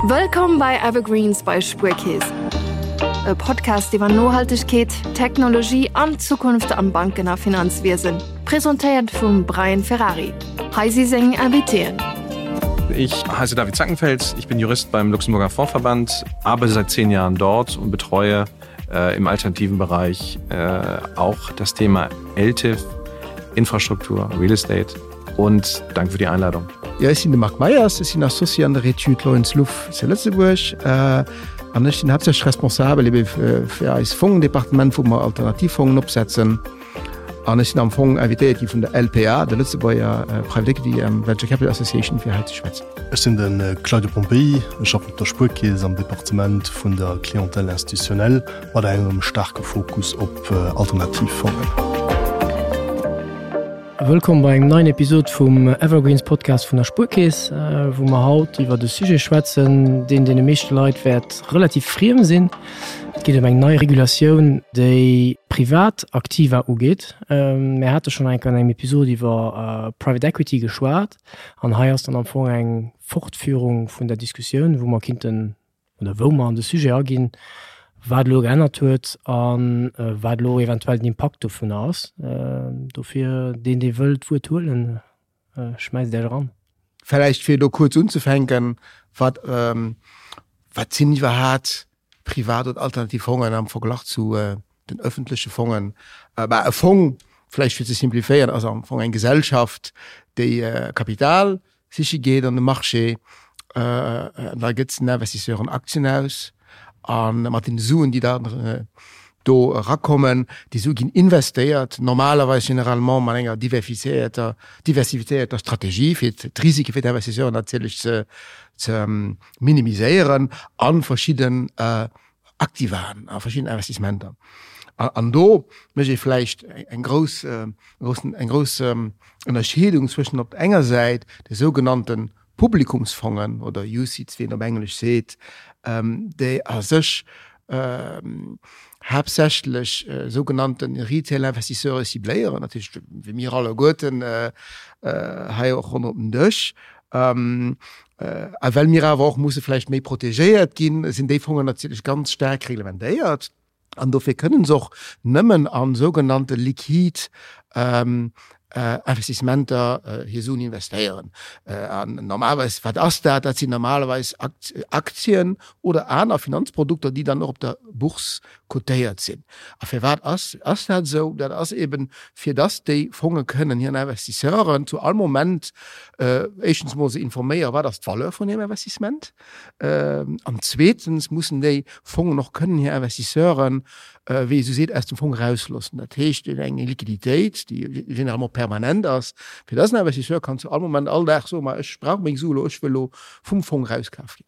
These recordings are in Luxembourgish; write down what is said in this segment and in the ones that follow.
Wëllkomm bei Evergreens bei Spuerkeess. E Podcast iwwer Nohaltegkeet, Technologie an d'Zukunft am Banken a Finanzwiesen. Presentéiert vum Brian Ferrari. Hei si seng Invitéen. Ich heiße David Zackenfels, ich bin Jurist beim Luxemburger Fondsverband, arbeite seit zehn Jahren dort und betreue äh, im alternativen Bereich äh, auch das Thema LTIF, Infrastruktur, Real Estate und danke für die Einladung. Ja, ech sinn de Marc Meyers, ech sinn Associé an der Etüd Lorenz Luff zu Lëtzebuerg an ech sinn haaptsächlech responsabel ebe fir eis Fongendepartement, wou mer Alternativfongen opsetzen. An ech sinn am Fong invitéiert gi vun der LPA, der Lëtzebuerger Private Equity and Venture Capital Association, fir hei ze schwätzen. Ech sinn de Claudio Pompei, ech schaffen op der Spuerkeess am Departement vun der Clientèle institutionnelle mat engem staarke Fokus op Alternativfongen. Wëllkomm bei engem neien Episod vum Evergreens Podcast vun der Spuerkeess, wou mer haut iwwert e Sujet schwätzen, deen deene meeschte Leit wäert relativ friem sinn. Et geet ëm eng nei Regulatioun, déi privat Aktiva ugeet. Mir hate schonn eng Kéier an engem Episod iwwer Private Equity geschwat an hei ass dann am Fong eng Fortführung vun der Diskussioun, wou mer kinnten oder wou mer an de Sujet aginn, wat elo geännert huet a wat elo eventuell den Impakt dovunner ass. Dofir, deen, dee wëll d'Wuert huelen, schmäisst Iech eran. Vläicht fir elo kuerz unzefänken, Wat, wat sinn iwwerhaat privat oder alternativ Fongen am Verglach zu den öffentleche Fongen? Bah, e Fong, vläicht fir ze simplifiéieren, ass am Fong eng Gesellschaft, déi Kapital siche geet an de Marché, an da gëtt den Investisseuren Aktien aus a mat den Suen, déi dann do erakommen, déi Sue ginn investéiert, normalerweis généralement mat enger diversifiéierter, diversifiéierter Strategie, fir d'Risike fir d'Investisseuren natierlech ze ze minimiséieren a verschidden Aktivaen, a verschidden Investissementer. An do mécht ee vläicht eng grouss, eng grouss Ënnerscheedung zwëschen op der enger Säit de sougenannte Publikumsfongen oder UCITS, wéi een op Englesch seet, déi a sech haaptsächlech sougenannte Retail-Investisseure cibléieren, dat heescht wéi mir alleguerten hei och ronderëm den Dësch. A well mir awer och musse vläicht méi protegéiert ginn, sinn déi Fongen natierlech ganz staark reglementéiert. An dofir kënnen se och nëmmen a sougenannte liquid Investissementer hir Suen investéieren. An normalerweis, wat ass dat? Dat sinn normalerweis Aktien oder aner Finanzprodukter, déi dann och op der Bourse cotéiert sinn. A firwat ass ass dat esou? Dat ass eben, fir dass déi Fonge kënnen hiren Investisseuren zu all Moment éischtens emol se informéieren, wat ass d'Valeur vun hirem Investissement, an zweetens mussen déi Fongen och kënnen hir Investisseuren, wéi ee sou seet, aus dem Fong erausloossen. Dat heescht, eng Liquiditéit, déi généralement permanent ass, fir dass en Investisseur kann zu all Moment, all Dag soen, ma ech brauch meng Su elo, ech wëll elo vum Fong erauskaf ginn.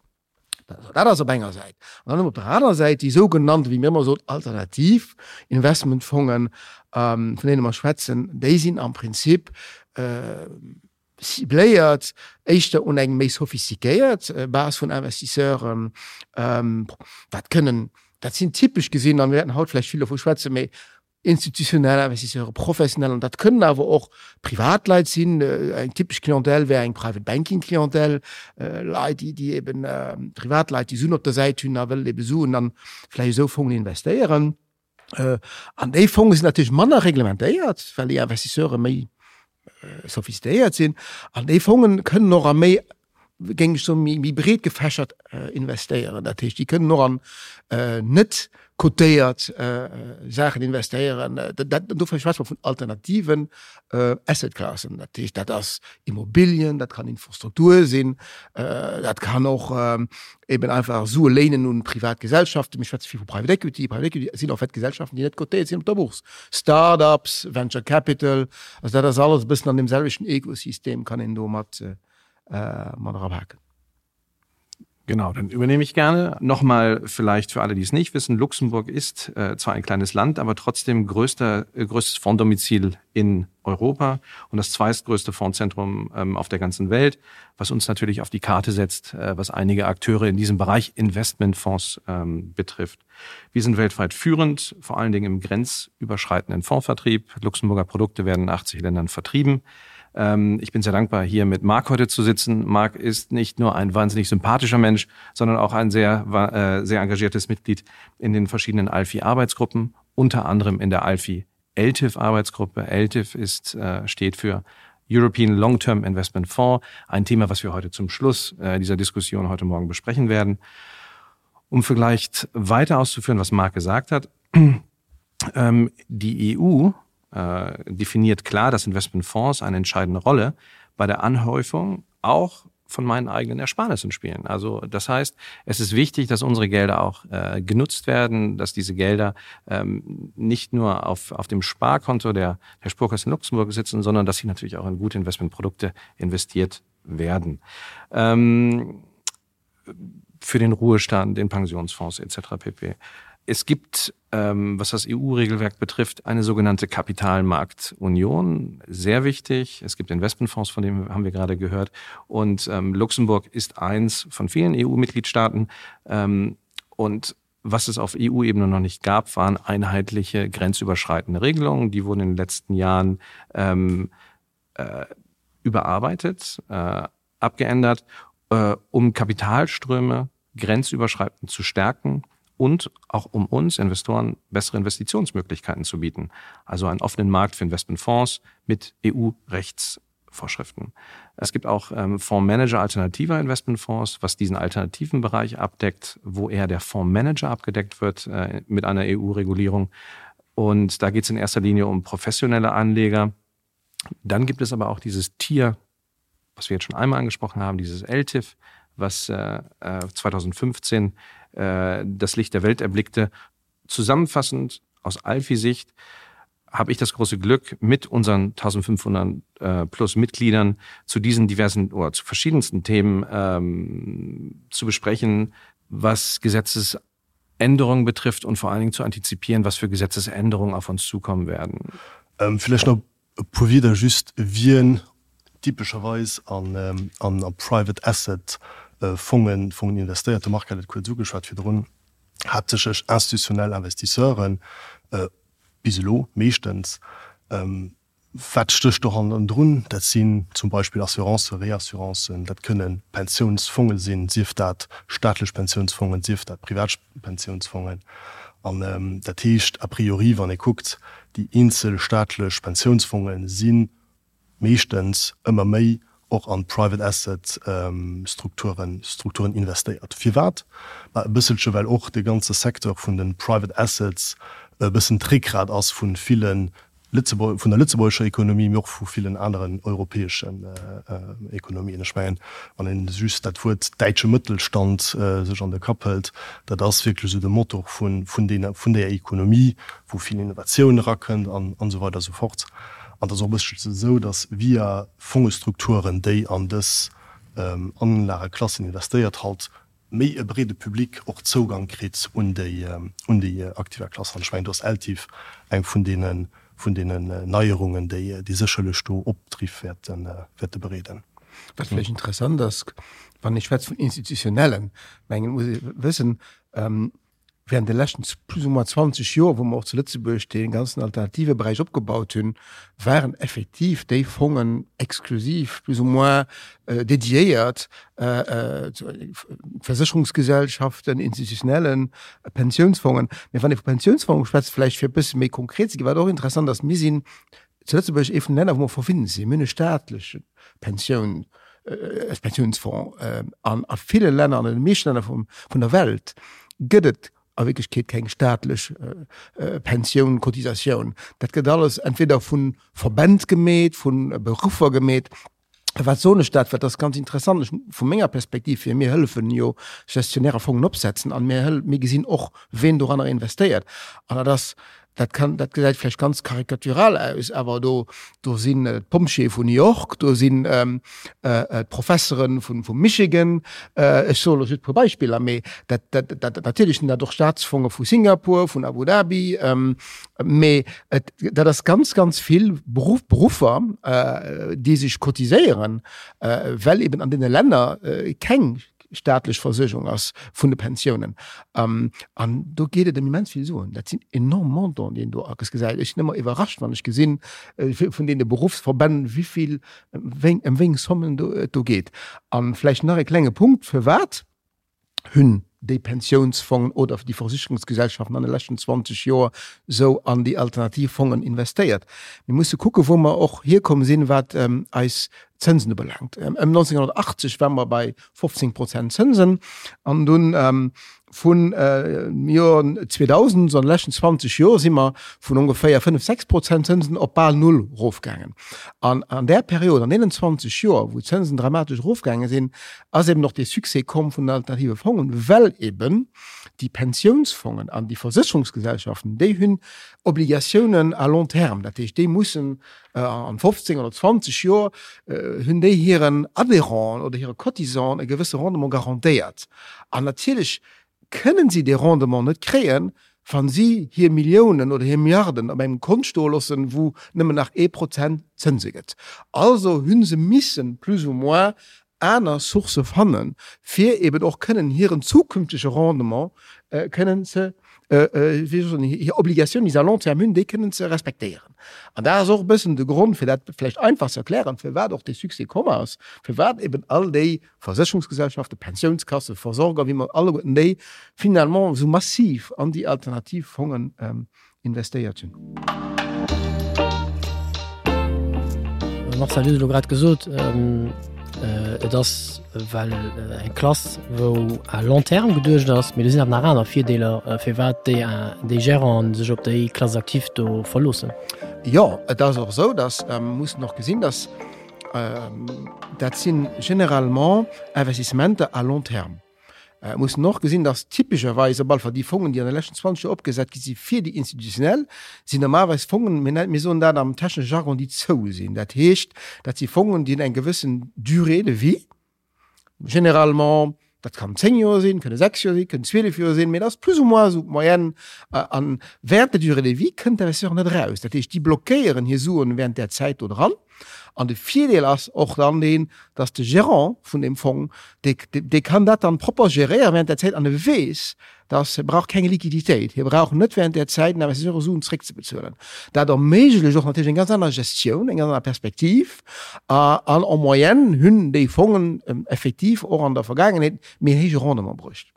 Dat ass op enger Säit. An dann op der anerer Säit déi sougenannte, wéi mir ëmmer soen, alternativ Investmentfongen, vun deene mer schwätzen, déi sinn am Prinzip cibléiert éischter un eng méi sophistiquéiert Base vun Investisseuren. Dat kënnen, dat sinn typesch gesinn, a mir wäerten haut vläicht vill dovu schwätzen, mee institutionell Investisseuren, professionell, an dat kënnen awer och Privatleit sinn. Eng typesch Clientèle wär eng Private Banking Clientèle, Leit, déi, déi eben, Privatleit, déi Suen op der Säit hunn a wëllen ebe Suen an vläicht esou Fongen investéieren. An déi Fonge sinn natierlech manner reglementéiert, well déi Investisseure méi sophistiquéiert sinn. An déi Fongen kënnen och a méi géing ech soen, méi breet gefächert investéieren. Dat heescht, déi kënnen och an net cotéiert Saachen investéieren. Dat, dofir schwätze mer vun alternativen Asset-Klassen. Dat heescht, dat ass Immobilien, dat kann Infrastruktur sinn, dat kann och eben einfach Sue léinen un privat Gesellschaften. Mir schwätze vill vu Private Equity. Private Equity sinn en fait Gesellschaften, déi net cotéiert sinn op der Bourse. Start-ups, Venture Capital, also dat ass alles e bëssen an deem selwechten Ekosystem, kann een do mat mat erapaken. Genau, dann übernehme ich gerne. Nochmal vielleicht für alle, die es nicht wissen, Luxemburg ist äh, zwar ein kleines Land, aber trotzdem größter, äh, größtes Fonddomizil in Europa und das zweitgrößte Fondzentrum ähm, auf der ganzen Welt, was uns natürlich auf die Karte setzt, äh, was einige Akteure in diesem Bereich Investmentfonds ähm, betrifft. Wir sind weltweit führend, vor allen Dingen im grenzüberschreitenden Fondsvertrieb. Luxemburger Produkte werden in 80 Ländern vertrieben. Ähm, ich bin sehr dankbar, hier mit Marc heute zu sitzen. Marc ist nicht nur ein wahnsinnig sympathischer Mensch, sondern auch ein sehr, äh, sehr engagiertes Mitglied in den verschiedenen ALFI-Arbeitsgruppen, unter anderem in der ALFI LTIF-Arbeitsgruppe. LTIF ist, äh, steht für European Long-Term Investment Fonds, ein Thema, was wir heute zum Schluss äh, dieser Diskussion heute Morgen besprechen werden. Um vielleicht weiter auszuführen, was Marc gesagt hat, ähm, die EU äh, definiert klar, dass Investmentfonds eine entscheidende Rolle bei der Anhäufung auch von meinen eigenen Ersparnissen spielen. Also das heißt, es ist wichtig, dass unsere Gelder auch äh, genutzt werden, dass diese Gelder ähm, nicht nur auf, auf dem Sparkonto der, der Sparkasse in Luxemburg sitzen, sondern dass sie natürlich auch in gute Investmentprodukte investiert werden. Ähm, für den Ruhestand, den Pensionsfonds etc. pp. Es gibt, ähm, was das EU-Regelwerk betrifft, eine sogenannte Kapitalmarktunion, sehr wichtig. Es gibt Investmentfonds, von dem haben wir gerade gehört. Und ähm, Luxemburg ist eins von vielen EU-Mitgliedstaaten. Ähm, und was es auf EU-Ebene noch nicht gab, waren einheitliche grenzüberschreitende Regelungen. Die wurden in den letzten Jahren ähm, äh, überarbeitet, äh, abgeändert, äh, um Kapitalströme grenzüberschreitend zu stärken und auch um uns Investoren bessere Investitionsmöglichkeiten zu bieten. Also einen offenen Markt für Investmentfonds mit EU-Rechtsvorschriften. Es gibt auch ähm, Fondsmanager alternativer Investmentfonds, was diesen alternativen Bereich abdeckt, wo eher der Fondsmanager abgedeckt wird äh, mit einer EU-Regulierung. Und da geht es in erster Linie um professionelle Anleger. Dann gibt es aber auch dieses Tier, was wir jetzt schon einmal angesprochen haben, dieses LTIF, was äh, 2015 äh, äh, das Licht der Welt erblickte. Zusammenfassend aus Alfi-Sicht habe ich das große Glück, mit unseren 1500 äh, plus Mitgliedern zu diesen diversen oder zu verschiedensten Themen ähm, zu besprechen, was Gesetzesänderungen betrifft und vor allen Dingen zu antizipieren, was für Gesetzesänderungen auf uns zukommen werden. Ähm, vielleicht noch e puer Wieder just wien typescherweis an, ähm, an, an Private Asset äh, Fongen, Fongen investéiert. De Marc hat et kuerz ugeschwat virdrun, haaptsächlech institutionell Investisseuren, äh, bis elo meeschtens. Ähm, wat stécht do hannendrun? Dat sinn zum Beispill Assurancen, Reassurancen, dat kënne Pensiounsfonge sinn, sief dat staatlech Pensiounsfongen, sief dat privat Pensiounsfongen. An dat heescht a priori, wann ee kuckt, déi eenzel staatlech Pensiounsfonge si meeschtens ëmmer méi och an Private Asset Strukturen Strukturen investéiert. Firwat? Ma e bësselche well och de ganze Secteur vun de Private Assets e bëssen d'Réckgrat ass vu ville Lëtzebuerg, vun der lëtzebuergescher Ekonomie, mee och vu villen aneren europäeschen Ekonomien. Ech mengen, wann een just dat Wuert däitsche Mëttelstand sech an de Kapp hëlt, dat ass wierklech esou de Motor vun, vun deene, vun där Ekonomie, wou vill Innovatioun erakënnt an, an esou weider esou fort. An et ass och e bësselche esou, datt via Fongestrukturen, déi an dës Anlageklassen investéiert, halt méi e breede Public och Zougang kritt un déi un déi Aktivaklass. An ech mengen, do ass ELTIF eng vun deene vun deenen Neierungen, déi déi sécherlech do Opdriff wäerte wäerte bereeden. Wat vläicht interessant ass, wann ee schwätzt vun institutionellen, mengen, muss ee wëssen, während de leschten plus ou moins 20 Joer, wou mer och zu Lëtzebuerg dee ganzen alternative Beräich opgebaut hunn, waren effektiv déi Fongen exklusiv plus ou moins dédiéiert Versécherungsgesellschaften, institutionellen Pensiounsfongen. Mee wann ee vu Pensiounsfonge schwätzt, vläicht fir e bësse méi konkret ze ginn, wat och interessant ass, Mir sinn zu Lëtzebuerg ee vun de Länner, wou mer verwinnt sinn. Mir hunn e staatleche Pensioun, Pensiounsfonds. An a ville Länner, an den meeschten Länner vum, vun der Welt gëtt et a Wierklechkeet keng staatlech Pensioun, Cotisatioun. Dat gëtt alles entweder vu Verbänd gemeet, vu Beruffer gemeet. Wat soen ech dat? Well dat ass ganz interessant ech, vu menger Perspektiv hier. Mir hëllefen jo Gestionnaire Fongen opsetzen an mir hël, mir gesinn och, ween doranner investéiert. An dat ass, dat kann, dat gesäit vläicht ganz karikatural aus, awer do, do sinn d'Pompjeeë vun New York, do sinn d'Professere vun, vum Michigan, ech soe lo just e puer Beispiller, mee dat, dat, dat, natierlech sinn dat och Staatsfonge vu Singapur, vun Abu Dhabi, Mee et, dat ass ganz, ganz vill Beruff, Beruffer, déi sech cotiséieren, well eben an deene Länner keng. staatlech Versuergung ass vun de Pensiounen. An do geet et ëm immens vill Suen. Dat sinn enorm Montanten, déi een do gesäit. Ech sinn ëmmer iwwerrascht, wann ech gesinn, vun deene Beruffsverbänn, wéi vill, ëm wéi eng Sommen et do geet. A vläicht nach e klenge Punkt, Firwat hunn déi Pensiounsfongen oder déi Versicherungsgesellschaften an de leschten 20 Joer esou an déi alternativ Fongen investéiert? Mir musse kucken, wou mer och hierkomm sinn, wat eis Zënsen ubelaangt. Ëm 1980 ware mer bei 15 Prozent Zënsen an dunn vun Joer 2000, also an de leschten 20 Joer, si mer vun ongeféier 5, 6 Prozent Zënsen op bal null erofgaangen. An an där Period, an deenen 20 Joer, wou d'Zënsen dramatesch erofgaange sinn, ass eben och dee Succès komm vun den alternative Fongen, well eben déi Pensiounsfongen an déi Versécherungsgesellschaften, déi hunn Obligatiounen à long terme, dat heescht, déi mussen an 15 oder 20 Joer hunn déi hiren Adhérenten oder hire Cotisanten e gewësse Rendement garantéiert. An natierlech kënnen si dee Rendement net kréien, wa si hir Milliounen oder hir Milliarden op engem Kont stoe loossen, wou nëmmen nach ee Prozent Zënse gëtt. Also hu se missen plus ou moins aner Sourcë fannen, fir eben och kënnen hiren zukünftege Rendement kënnen ze, wéi soll ech soen, hir Obligatioun, déi se à long terme hunn, déi kënnen ze respektéieren. An dat ass och e bëssen de Grond, fir dat vläicht einfach ze erklären, firwat och dee Succès komm ass, firwat eben all déi Versécherungsgesellschaften, Pensiounskassen, Versorger, wéi mer alleguerten déi finalement esou massiv an déi alternativ Fongen investéiert hunn. Marcel, du hues elo grad gesot, et ass well eng Klass, wou à long terme geduecht ass, mee do sinn awer nach aner Virdeeler, firwat déi déi Géranten sech op déi Classe active do verloossen. Jo, et ass och esou, datt mussen och gesinn, datt dat si généralement Investissementer à long terme. Et muss en och gesinn, dass typescherweis op alle Fall déi Fongen, déi an de leschten 20 Joer opgesat gi si fir déi Institutionell, sinn normalerweis Fongen, mir nen, mir soen dat am technesche Jargon, déi zou sinn. Dat heescht, dat si Fongen, déi hunn eng gewëssen Durée de vie, généralement, dat kann 10 Joer sinn, kënne 6 Joer sinn, kënnen 12 Joer sinn, mee dat ass plus ou moins esou d'Moyenne. An während der Durée de vie kënnt d'Investisseur net eraus. Dat heescht, déi blockéieren hir Suen während där Zäit do dran. An de Virdeel ass och dann deen, dass de Gérant vun deem Fong, dee, dee kann dat dann propper géréieren während där Zäit an e weess, dass e brauch keng Liquiditéit, hie brauch net während där Zäit den Investisseur Suen zréckzebezuelen. Dat erméiglecht och natierlech eng ganz aner Gestioun, eng ganz aner Perspektiv. An en moyenne hunn déi Fongen effektiv och an der Vergaangenheet méi héije Rendement bruecht.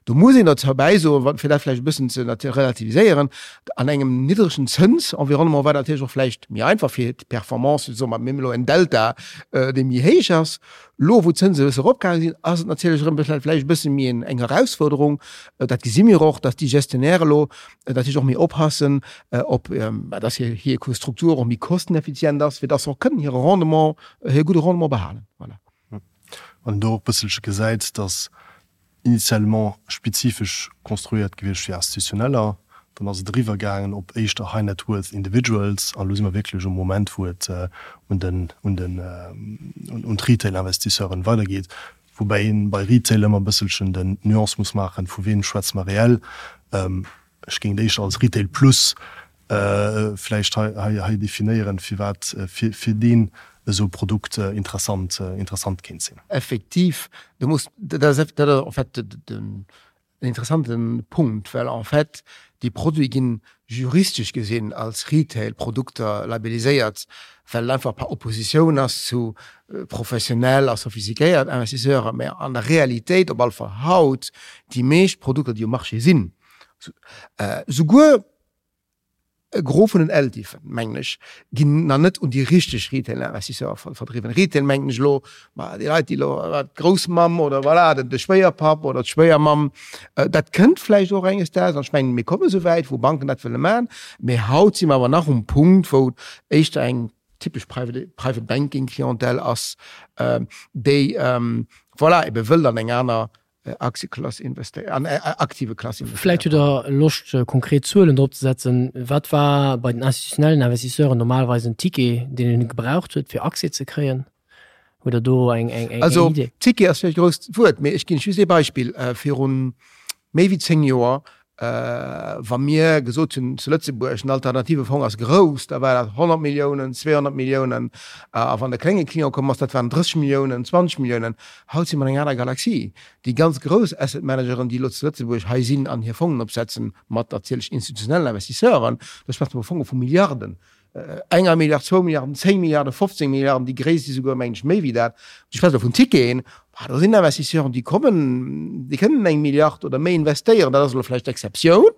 Do muss een dozou bäisoen, fir dat vläicht e bëssen ze relativiséieren, an engem niddregen Zënsenvironnement war dat natierlech och vläicht méi einfach fir d'Performance, soe mer, mir hunn elo en Delta, dee méi héich ass. Elo, wou d'Zënse e bësse eropgaange sinn, ass et natierlech erëm vläicht e bësse méi eng Erausfuerderung. Dat gesi mir och, dass déi Gestionnaire elo natierlech och méi oppassen, op, dass hir Struktur och méi kosteneffizient ass, fir dass se och kënnen hire Rendement, hire gudde Rendement behalen. Voilà. Wann een do och e bësselche gesäit, dass initialement spezifesch konstruéiert gewiescht fir Institutioneller, dann ass et eriwwer gaangen op éischter High Net Worth Individuals an elo si mer wierklech um Moment, wou et un den, un den, un d'Retail-Investisseuren weidergeet, woubäi een bei Retail ëmmer e bësselchen den d'Nuance muss maachen, vu weem schwätze mer reell. Ech géing et éischter als Retail plus vläicht hei definéieren, firwat fir deen esou e Produkt interessant interessant kéint sinn. Effektiv, do muss, dat ass en fait en interessante Punkt, well en fait déi Produite ginn juristesch gesinn als Retail-Produkter labelliséiert, well et einfach par opposition ass zu professionell a sophistiquéiert Investisseuren. Mä an der Realitéit, op alle Fall haut, déi meescht Produkter, déi um Marché sinn, souguer e Gros vun den LTIFen, mengen ech, ginn nach net un déi richteg Retail-Investisseure verdriwwen. Retail mengen ech elo, ma déi Leit, déi elo, d'Groussmamm oder voilà, de Schwéierpapp oder d'Schwéiermamm, dat kënnt vläicht och enges Daags an ech mengen, mir komme souwäit, wou Banken dat wëlle maachen. Mee haut si mer awer nach um Punkt, wou éischter eng typesch Private, Private Banking Clientèle ass, déi voilà, ebe wëllt an eng aner Aktieklass investéieren, an Aktiveklass investéieren. Vläicht hutt Der Loscht, konkret Zuelen drop ze setzen. Wat war bei den institutionellen Investisseuren normalerweis en Ticket, deen een gebraucht huet, fir Accès ze kréien? Hutt Der do eng Idee? Also, Ticket ass vläicht e grousst Wuert, mee ech ginn just ee Beispill. Virun méi wéi 10 Joer. Wa mir gesot hunn zu Lëtzebuerg, den alternative Fong ass grouss, da war dat 100 Milliounen, 200 Milliounen. A wann de klénge Client komm ass, dat waren 30 Milliounen, 20 Milliounen. Haut si mer an enger aner Galaxie. Déi ganz grouss Asset Manageren, déi elo zu Lëtzebuerg hei sinn an hir Fongen opsetzen, mat natierlech institutionellen Investisseuren, do schwätze mer vu Fonge vu Milliarden. Enger Milliard, zwou Milliarden, 10 Milliarden, 15 Milliarden, déi gréisst si souguer, mengen ech, méi wéi dat. Ech schwätze elo vun Ticketen. Bah, do sinn Investisseuren, déi kommen, déi kënnen eng Milliard oder méi investéieren. Dat ass elo vläicht d'Exceptioun,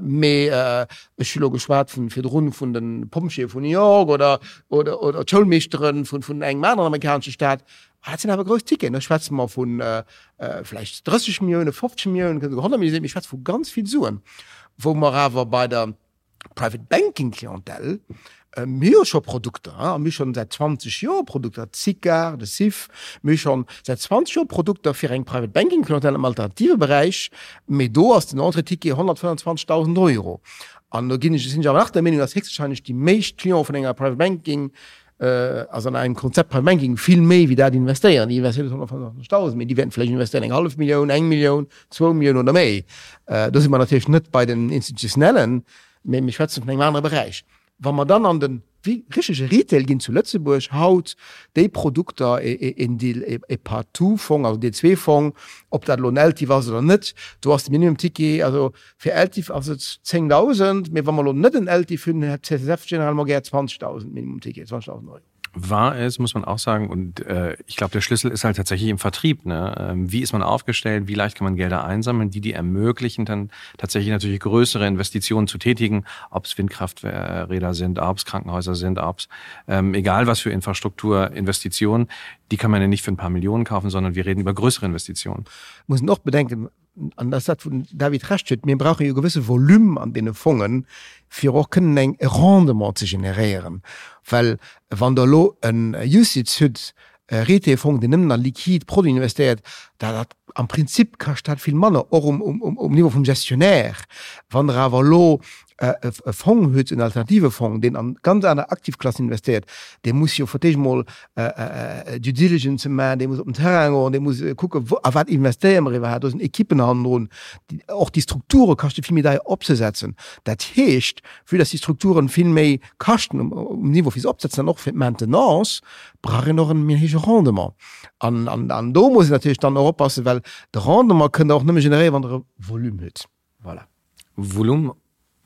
mee ech hu elo geschwat vun virdrun vun de Pompjeeë vun New York oder, oder, oder d'Schoulmeeschtere vun, vun engem aneren amerikanesche Staat. Ah, dat sinn awer grouss Ticketen. Do schwätze mer vu vläicht 30 Milliounen, 50 Milliounen, kënnen souguer 100 Milliounen sinn. Mir schwätze vu ganz vill Suen, wou mer awer bei der, Private Banking Clientèle, mir hu scho Produkter, a mir hu schonn säit 20 Joer Produkter, d'SICAR, de SIF, mir hu schonn säit 20 Joer Produkter fir eng Private Banking Clientèle am alternative Beräich, mee do ass den Entrée-Ticket 125.000 Euro. An do ginn ech, sinn ech awer nach der Meenung, dass héchstwahrscheinlech déi meescht Cliente vun enger Private Banking, also an engem Konzept Private Banking vill méi wéi dat investéieren. Déi investéieren net 125.000, mee déi wäerten vläicht investéieren eng hallef Millioun, eng Millioun, zwou Milliounen oder méi. Do si mer natierlech net bei den Institutionellen, mee mir schwätzen vun engem anere Beräich. Wa mer dann an de richtege Retail ginn zu Lëtzebuerg haut, déi Produkter, een Deal, e Partout-Fong, also D2-Fong, ob dat elo en LTIF ass oder net, do ass de Minimum-Ticket, also Fir LTIF ass et 10.000, mee wa mer elo net en LTIF hunn, hätt d'CSSF généralement gär 20.000 Minimum Ticket, 20.000 Euro. Wahr ist, muss man auch sagen, und äh, ich glaube, der Schlüssel ist halt tatsächlich im Vertrieb. Ne? Ähm, wie ist man aufgestellt? Wie leicht kann man Gelder einsammeln, die die ermöglichen, dann tatsächlich natürlich größere Investitionen zu tätigen, ob es Windkrafträder sind, ob es Krankenhäuser sind, ob es ähm, egal was für Infrastrukturinvestitionen, die kann man ja nicht für ein paar Millionen kaufen, sondern wir reden über größere Investitionen. Muss man auch bedenken, an dat ass dat, wou den David Recht huet, mir brauche jo e gewësse Volume an deene Fongen, fir och kënnen eng e Rendement ze generéieren. Well wann Der elo en UCITS hutt, e Retail-Fong, deen nëmmen a liquid Produiten investéiert, da dat am Prinzip kascht dat vill manner, och um, um, um Niveau vum Gestionnaire. Wann Der awer elo e Fong huet, en alternative Fong, deen an ganz aner Aktivklassen investéiert, dee muss jo fir d'éischt emol Due Diligence maachen, dee muss op den Terrain goen, dee muss kucken, wou a wat investéiere mer iwwerhaapt. Do sinn Ekippen hannendrun. Och déi Strukture kaschte vill méi deier opzesetzen. Dat heescht, vue dass déi Strukturen vill méi kaschten um Niveau fir se opzesetzen an och fir d'Maintenance, brauch een och en méi héije Rendement. An, an, an do muss een natierlech dann och oppassen, well de Rendement kënnt Der och nëmme generéieren, wann Der e Volume hutt. Voilà. Volumen.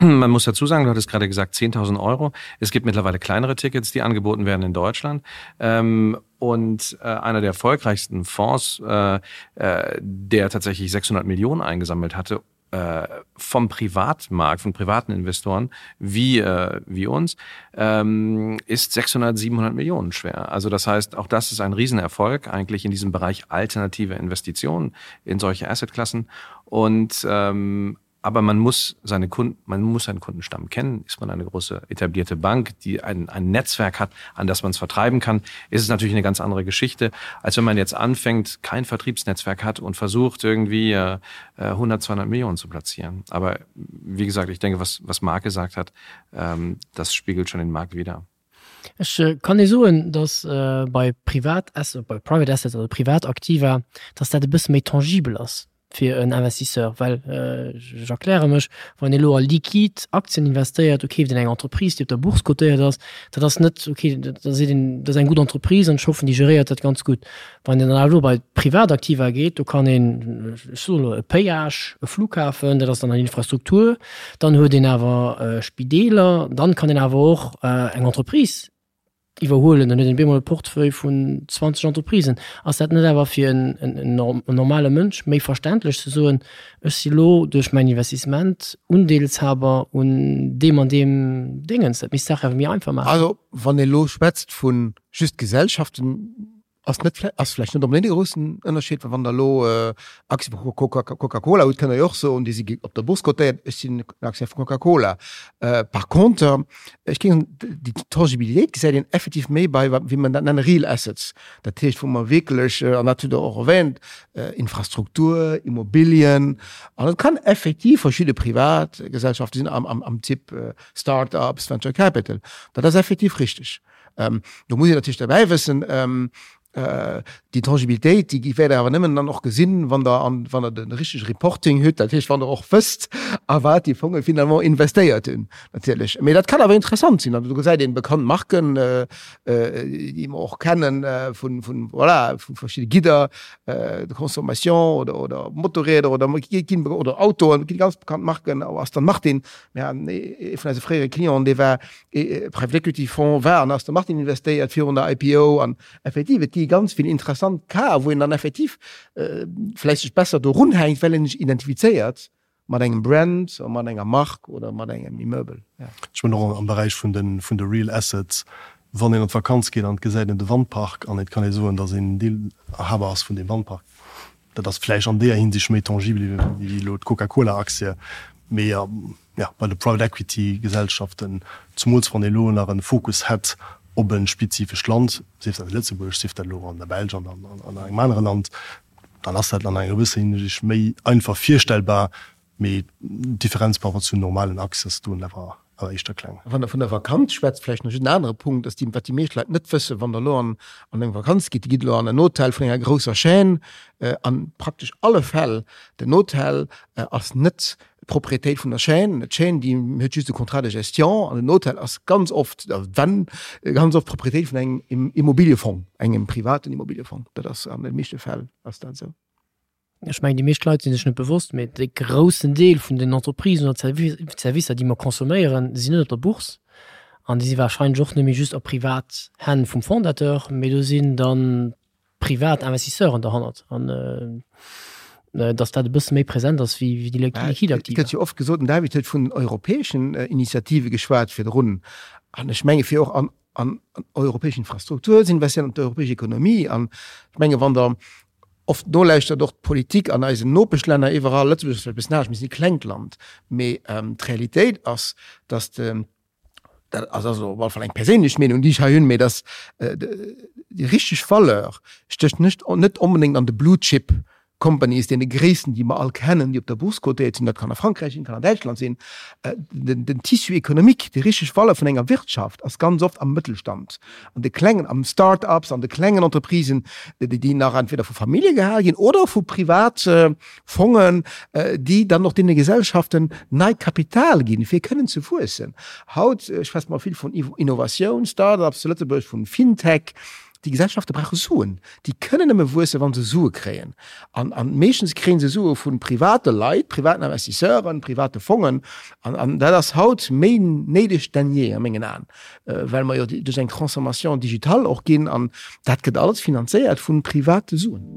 Man muss dazu sagen, du hattest gerade gesagt 10.000 Euro. Es gibt mittlerweile kleinere Tickets, die angeboten werden in Deutschland. Ähm, und äh, einer der erfolgreichsten Fonds, äh, äh, der tatsächlich 600 Millionen eingesammelt hatte, äh, vom Privatmarkt, von privaten Investoren wie, äh, wie uns, ähm, ist 600, 700 Millionen schwer. Also das heißt, auch das ist ein Riesenerfolg eigentlich in diesem Bereich alternative Investitionen in solche Assetklassen. Und ähm, aber man muss seine Kunden, man muss seinen Kundenstamm kennen. Ist man eine große etablierte Bank, die ein, ein Netzwerk hat, an das man es vertreiben kann, ist es natürlich eine ganz andere Geschichte, als wenn man jetzt anfängt, kein Vertriebsnetzwerk hat und versucht irgendwie äh, 100, 200 Millionen zu platzieren. Aber wie gesagt, ich denke, was, was Marc gesagt hat, ähm, das spiegelt schon den Markt wieder. Ech kann ee soen, datt bei Privat bei Private Assets, also Privataktiva, datt dat e bësse méi tangibel ass fir en Investisseur, well ech erkläre mech, wann ee elo a liquid Aktien investéiert, do keeft een eng Entreprise, déi op der Bourse cotéiert ass, dat ass net, okay, da seet een, dat ass eng gutt Entreprise an ech hoffen, déi geréiert dat ganz gutt. Wann een dann awer elo bei d'Privataktiva geet, do kann een, ech soen elo, e Péage, e Flughafen, dat ass dann an Infrastruktur, dann huet een awer Spideeler, dann kann een awer och eng Entreprise iwwerhuelen, dann huet een op eemol e Portefeuille vun 20 Entreprisen. Ass dat net awer fir en normale Mënsch méi verständlech ze soen, ech si lo duerch mäin Investissement Undeelshaber un deem an deem Déngens? Dat misst d'Saach awer méi einfach maachen. Also wann ee lo schwätzt vu just Gesellschaften, Ass net ass vläicht net onbedéngt e groussen Ënnerscheed, well wann Der elo Aktie vu Coca-Cola hutt, kënnt Der jo och soen, déi si op der Bourse cotéiert, ech sinn en Aktionär vu Coca-Cola. Par contre, ech géing soen, déi Tangibilitéit gesäit een effektiv méi bei, wéi mer dat nennen, Real Assets. Dat heescht, wou mer wierklech, an dat hutt Der och erwähnt, Infrastruktur, Immobilien, an et kann effektiv verschidde Privatgesellschafte sinn am Typ Start-ups, Venture Capital. Dat ass effektiv richteg. Do muss een natierlech derbäi wëssen. Déi Tangibilitéit, déi wäert Der awer nëmmen dann och gesinn, wann Der an, wann Der de richtege Reporting hutt, dat heescht, wann Der och wësst, a wat déi Fonge finalement investéiert hunn natierlech. Mee dat kann awer interessant sinn. An do gesäit een bekannt Marken, déi mer och kennen vun, vun, voilà, vu verschidde Gidder de consommation oder, oder Motorräder oder ginn, oder Autoen, et gi ganz bekannt Marken, Aston Martin. Mir haten ee vun eise fréiere Clienten, dee war Private Equity Fonds war an Aston Martin investéiert virun der IPO an effektiv et gi ganz vill interessant Casen, wou een dann effektiv vläicht sech besser do runhänkt, well een sech identifizéiert mat engem Brand oder mat enger Mark oder mat engem Immeuble. Ech mengen och am Beräich vun de vun de Real Assets, wann een an d'Vakanz geet an et gesäit een de Wandpark an et kann ee soen, datt een Deelhaber ass vun deem Wandpark, dat ass vläicht an deeër Hinsicht méi tangibel wéi elo d'Coca-Cola-Aktie, mee jo, bei de Private Equity Gesellschaften, zumools wann ee elo nach e Fokus hätt op e spezifescht Land, sief dat Lëtzebuerg, sief dat elo an der Belsch an an engem anere Land, dann ass dat an enger gewësser Hinsicht méi einfach virstellbar, mee d'Differenz par rapport zu normalen Aktien ass do awer éischter kleng. Wann Der vun der Vakanz schwätzt, vläicht nach just en anere Punkt, dass déi, wat déi meescht Leit net wëssen, wann Der elo an an eng Vakanz gitt, Dir gitt elo an en Hotel vun enger grousser Chaîne, an praktesch alle Fäll, den Hotel ass net d'Propriétéit vun der Chaîne. D'Chaîne, déi huet just e Contrat de gestion an den Hotel ass ganz oft, wenn, ganz oft d'Propriétéit vun engem Immobiliefong, engem privaten Immobiliefong. Dat ass an de meeschte Fäll ass dat esou. Ech mengen, déi meescht Leit si sech net bewosst, mee de groussen Deel vun den Entreprisen oder Servicer, déi mer consomméieren, sinn net op der Bourse an déi si warscheinlech och net méi just a privat Hänn vum Fondateur, mee do sinn dann privat Investisseuren derhannert an dass dat e bësse méi present ass wéi déi liquid Aktiva. Et gëtt jo oft gesot, den David huet vun europäeschen Initiative geschwat virdrun, an ech menge fir och an an europäesch Infrastruktur ze investieren, an d'europäesch Ekonomie. An ech menge wann Der oft nolauschtert, och d'Politik an eisen Nopeschlänner iwwerall, Lëtzebuerg ass vläicht e bëssen anescht, mir sinn e klengt Land, mee d'Realitéit ass, dass de dat ass also op alle Fall eng perséinlech Meenung, déi ech hei hunn, mee dass déi richteg Valeur stécht net net onbedéngt an de Blue Chip Companies, deene gréissten, déi mer all kennen, déi op der Bourse cotéiert sinn, dat kann a Frankräich sinn, kann an Däitschland sinn. Den den Tissu économique, déi richteg Valeur vun enger Wirtschaft ass ganz oft am Mëttelstand, an de klengen, am Start-ups, an de klengen Entreprisen, déi déi nach entweder vu Famillje gehal ginn oder vu privat Fongen, déi dann och deene Gesellschaften neit Kapital ginn, fir kënnen ze wuessen. Haut schwätze mer vill vun Innovatioun, Start-ups zu Lëtzebuerg, vun FinTech. Déi Gesellschafte brauche Suen. Déi kënnen nëmme wuessen, wa se Sue kréien. An meeschtens kréie se Sue vu private Leit, privaten Investisseuren, private Fongen. An dat ass haut méi néideg denn jee a mengen Aen, well mer jo duerch eng Transformation digitale och ginn an dat gëtt alles finanzéiert vu private Suen.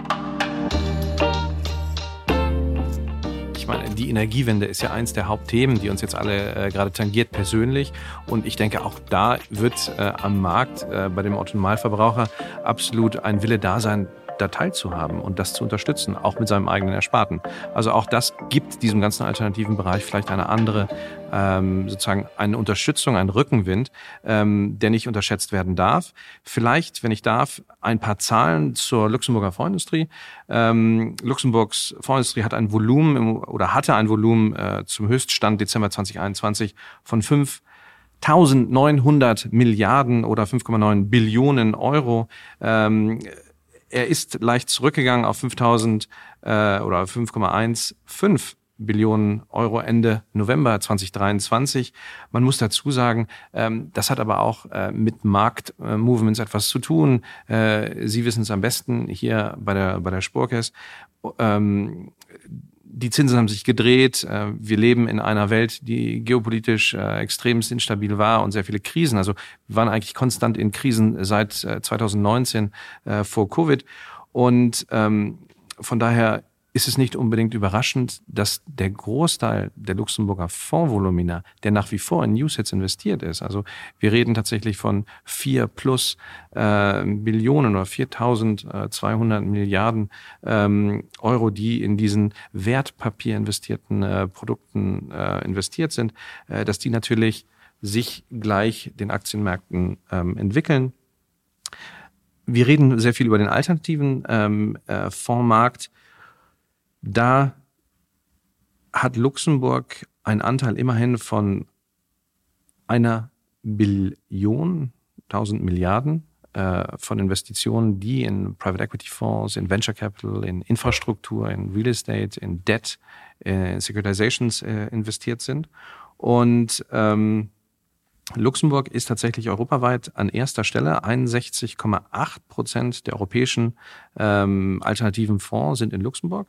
Ich meine, die Energiewende ist ja eins der Hauptthemen, die uns jetzt alle äh, gerade tangiert persönlich. Und ich denke, auch da wird äh, am Markt äh, bei dem Autonomalverbraucher absolut ein Wille da sein, da teilzuhaben und das zu unterstützen, auch mit seinem eigenen Ersparten. Also auch das gibt diesem ganzen alternativen Bereich vielleicht eine andere, ähm, sozusagen eine Unterstützung, einen Rückenwind, ähm, der nicht unterschätzt werden darf. Vielleicht, wenn ich darf, ein paar Zahlen zur Luxemburger Fondsindustrie. Ähm, Luxemburgs Fondsindustrie hat ein Volumen im, oder hatte ein Volumen äh, zum Höchststand Dezember 2021 von 5 1900 Milliarden oder 5,9 Billionen Euro. Ähm, er ist leicht zurückgegangen auf 5000 äh, oder 5,15 Billionen Euro Ende November 2023. Man muss dazu sagen, ähm, das hat aber auch äh, mit Marktmovements etwas zu tun. Äh, Sie wissen es am besten hier bei der, bei der Spurkes. Ähm, die Zinsen haben sich gedreht. Äh, wir leben in einer Welt, die geopolitisch äh, extremst instabil war und sehr viele Krisen. Also wir waren eigentlich konstant in Krisen seit 2019 äh, vor Covid. Und ähm, von daher ist es nicht unbedingt überraschend, dass der Großteil der Luxemburger Fondsvolumina, der nach wie vor in Newsets investiert ist, also wir reden tatsächlich von 4 plus äh, Billionen oder 4.200 Milliarden ähm, Euro, die in diesen Wertpapier investierten äh, Produkten äh, investiert sind, äh, dass die natürlich sich gleich den Aktienmärkten ähm, entwickeln. Wir reden sehr viel über den alternativen ähm, äh, Fondsmarkt. Da hat Luxemburg einen Anteil immerhin von einer Billion 1000 Milliarden. äh, von Investitionen, die in Private Equity Fonds, in Venture Capital, in Infrastruktur, in Real Estate, in Debt, in Securitizations äh, investiert sind. Und ähm, Luxemburg ist tatsächlich europaweit an erster Stelle. 61,8 Prozent der europäischen ähm, alternativen Fonds sind in Luxemburg,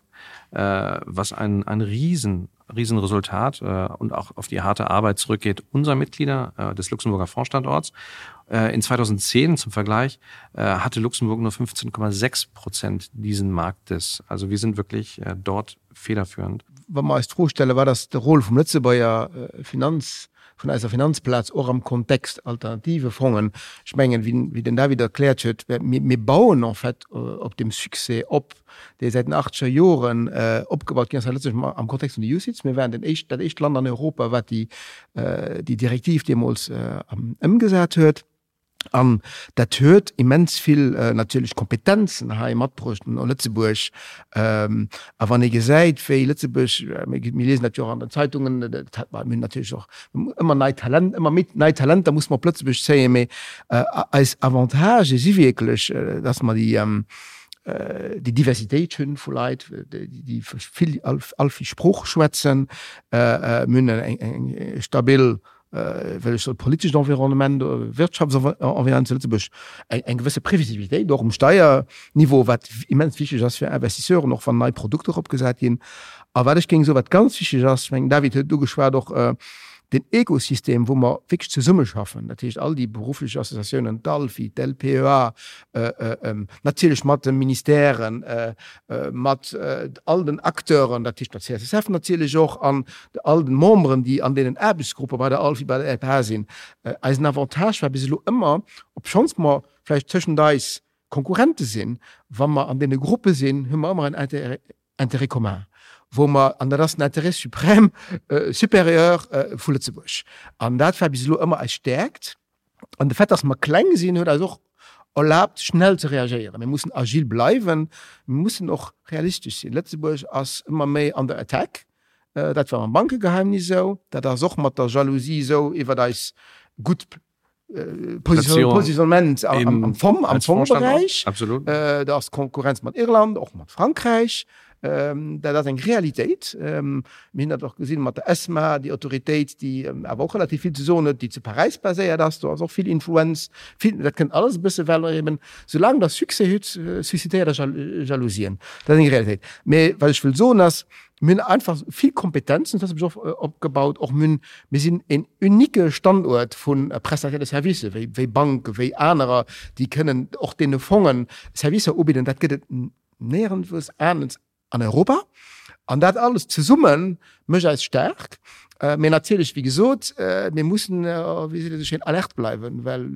äh, was ein, ein riesen, Riesenresultat äh, und auch auf die harte Arbeit zurückgeht unserer Mitglieder äh, des Luxemburger Fondsstandorts. Äh, in 2010 zum Vergleich äh, hatte Luxemburg nur 15,6 Prozent diesen Marktes. Also wir sind wirklich äh, dort federführend. Wa mer eis d'Fro stellen, wat ass de Rôle vum Lëtzebuerger Finanz, vun eiser Finanzplaz och am Kontext alternative Fongen? Ech mengen, wéi den David erkläert huet, mir bauen en fait op deem Succès op, dee säit den achtzeger Joren opgebaut ginn ass hei Lëtzebuerg am Kontext vun de UCITS. Mir waren den éischt, dat éischt Land an Europa, wat déi Direktiv deemools ëmgesat huet. An dat huet immens vill natierlech Kompetenzen hei matbruecht no Lëtzebuerg. A wann ee gesäit, wéi Lëtzebuerg, mir liesen dat jo och an den Zeitungen, dat hat mer, mir hunn natierlech och ëmmer nei Talent, ëmmer méi nei Talenter musse mer op Lëtzebuerg zéien, mee eis Avantagë si wierklech, dass mer déi, déi Diversitéit hunn vu Leit, déi vill, all vill Sprooche schwätzen. Mir hunn eng stabil well ech soll politescht Environnement, Wirtschaftsenvironnement zu Lëtzebuerg eng eng gewësse Previsibilitéit och um Steierniveau, wat immens wichteg ass fir Investisseuren, och wann nei Produkter opgesat ginn. A wat ech géing soen, wat ganz wichteg ass, ech mengen, David huet et ugeschwat, och den Ekosystem, wou mer wierklech zesummeschaffen, dat heescht all déi berufflech Associatiounen, d'ALFI, d'LPEA, natierlech mat de Ministèren, mat all den Acteuren, dat heescht der CSSF natierlech och, an all den Memberen, déi an deenen Aarbechtsgruppe bei der ALFI, bei der LPA sinn. Eisen Avantage war bis elo ëmmer, obschonns mer vläicht tëschent eis Konkurrente sinn, wa mer an deene Gruppe sinn, hu mer ëmmer en Intérêt commun, wou mer, an dat ass den Intérêt suprême, supérieur vu Lëtzebuerg. An dat war bis elo ëmmer eis Stäerkt. An de Fait, dass mer kleng sinn, huet eis och erlaabt, schnell ze reagéieren. Mir mussen agil bleiwen, mir mussen och realistesch sinn. Lëtzebuerg ass ëmmer méi under attack. Dat war mam Bankegeheimnis esou, dat ass och mat der Jalousie esou iwwert eis gutt Positionnement am Fong, am Fongberäich. Da ass d'Konkurrenz mat Irland, och mat Frankräich. Dat ass eng Realitéit. Mir hunn dat och gesinn mat der ESMA, déi Autoritéit, déi awer och relativ vill ze soen huet, déi zu Paräis baséiert ass. Do ass och vill Influenz, vill, dat kënnt alles e bësse well eben, soulaang Der Succès hutt, suscitéiert Der Jalousien. Dat ass eng Realitéit. Mee wat ech wëll soen ass, mir hunn einfach vill Kompetenzen, dat ass och opgebaut, och mir hunn, mir sinn en unique Standuert vu Prestataires de services, wéi, wéi Banken, wéi anerer, déi kënnen och deene Fongen Servicer ubidden. Dat gëtt et néierenswous anescht an Europa. An dat alles zesumme mécht eis staark. Mee natierlech, wéi gesot, mir mussen, wéi seet een esou schéin, alert bleiwen, well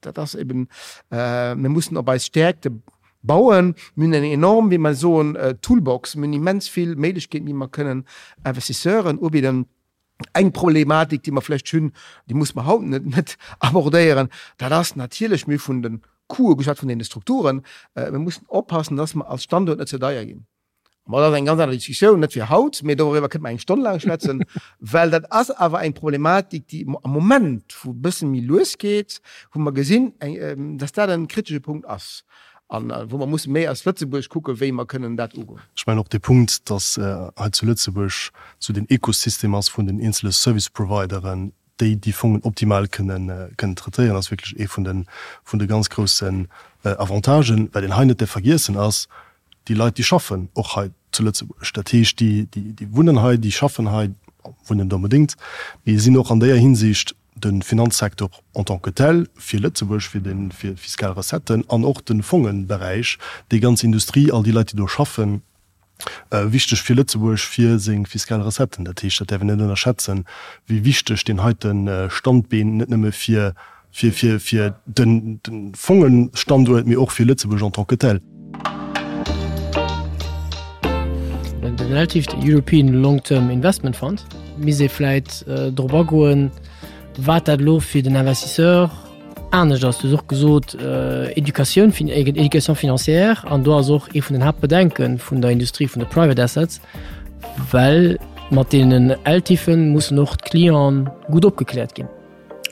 dat ass eben, mir mussen op eis Stäerkte bauen. Mir hunn eng enorm, wéi mer soen, Toolbox. Mir hunn immens vill Méiglechkeeten, déi mer kënnen Investisseuren ubidden. Eng Problematik, déi mer vläicht hunn, déi muss mer haut net net abordéieren, dat ass natierlech, mir hu vun de Coûte geschwat, vun deene Strukturen, mir mussen oppassen, dass mer als Standuert net ze deier ginn. Mä dat ass eng ganz aner Diskussioun, net fir haut, mee doriwwer kënnte mer eng Stonn laang schwätzen, well dat ass awer eng Problematik, déi am Moment, wou e bësse méi lues geet, wou mer gesinn, dass dat e kritesche Punkt ass. An wou mer musse méi als Lëtzebuerg kucken, wéi mer kënnen dat ugoen. Ech mengen och dee Punkt, dass hei zu Lëtzebuerg esou den Ekosystem ass vun den eenzele Service Provideren, déi déi Fongen optimal kënnen kënnen traitéieren, ass wierklech ee vun de vun de ganz groussen Avantagen. Wat een hei net däerf vergiessen ass, déi Leit, déi schaffen och hei zu Lëtzebuerg. Dat heescht, déi déi wunnen hei, déi schaffen hei, wunnen net onbedéngt, mee sinn och an déier Hinsicht de Finanzsektor en tant que tel fir Lëtzebuerg, fir de fir fiskal Recetten an och de Fongenberäich, déi ganz Industrie, all déi Leit, déi do schaffen, wichteg fir Lëtzebuerg, fir seng fiskal Recetten. Dat heescht, dat däerf een net ënnerschätzen, wéi wichteg deen heite Standbeen net nëmme fir fir fir fir de Fongenstanduert, mee och fir Lëtzebuerg en tant que tel. Den ELTIF, de European Long Term Investment Fund, misst ee vläit drop agoen, wat dat elo fir den Investisseur anescht ass. Du hues och gesot, Educatioun, Éducation financière, an do ass och ee vun den Haaptbedenke vun der Industrie vun de Private Assets, well mat deenen ELTIFen mussen och d'Clienten gutt opgekläert ginn.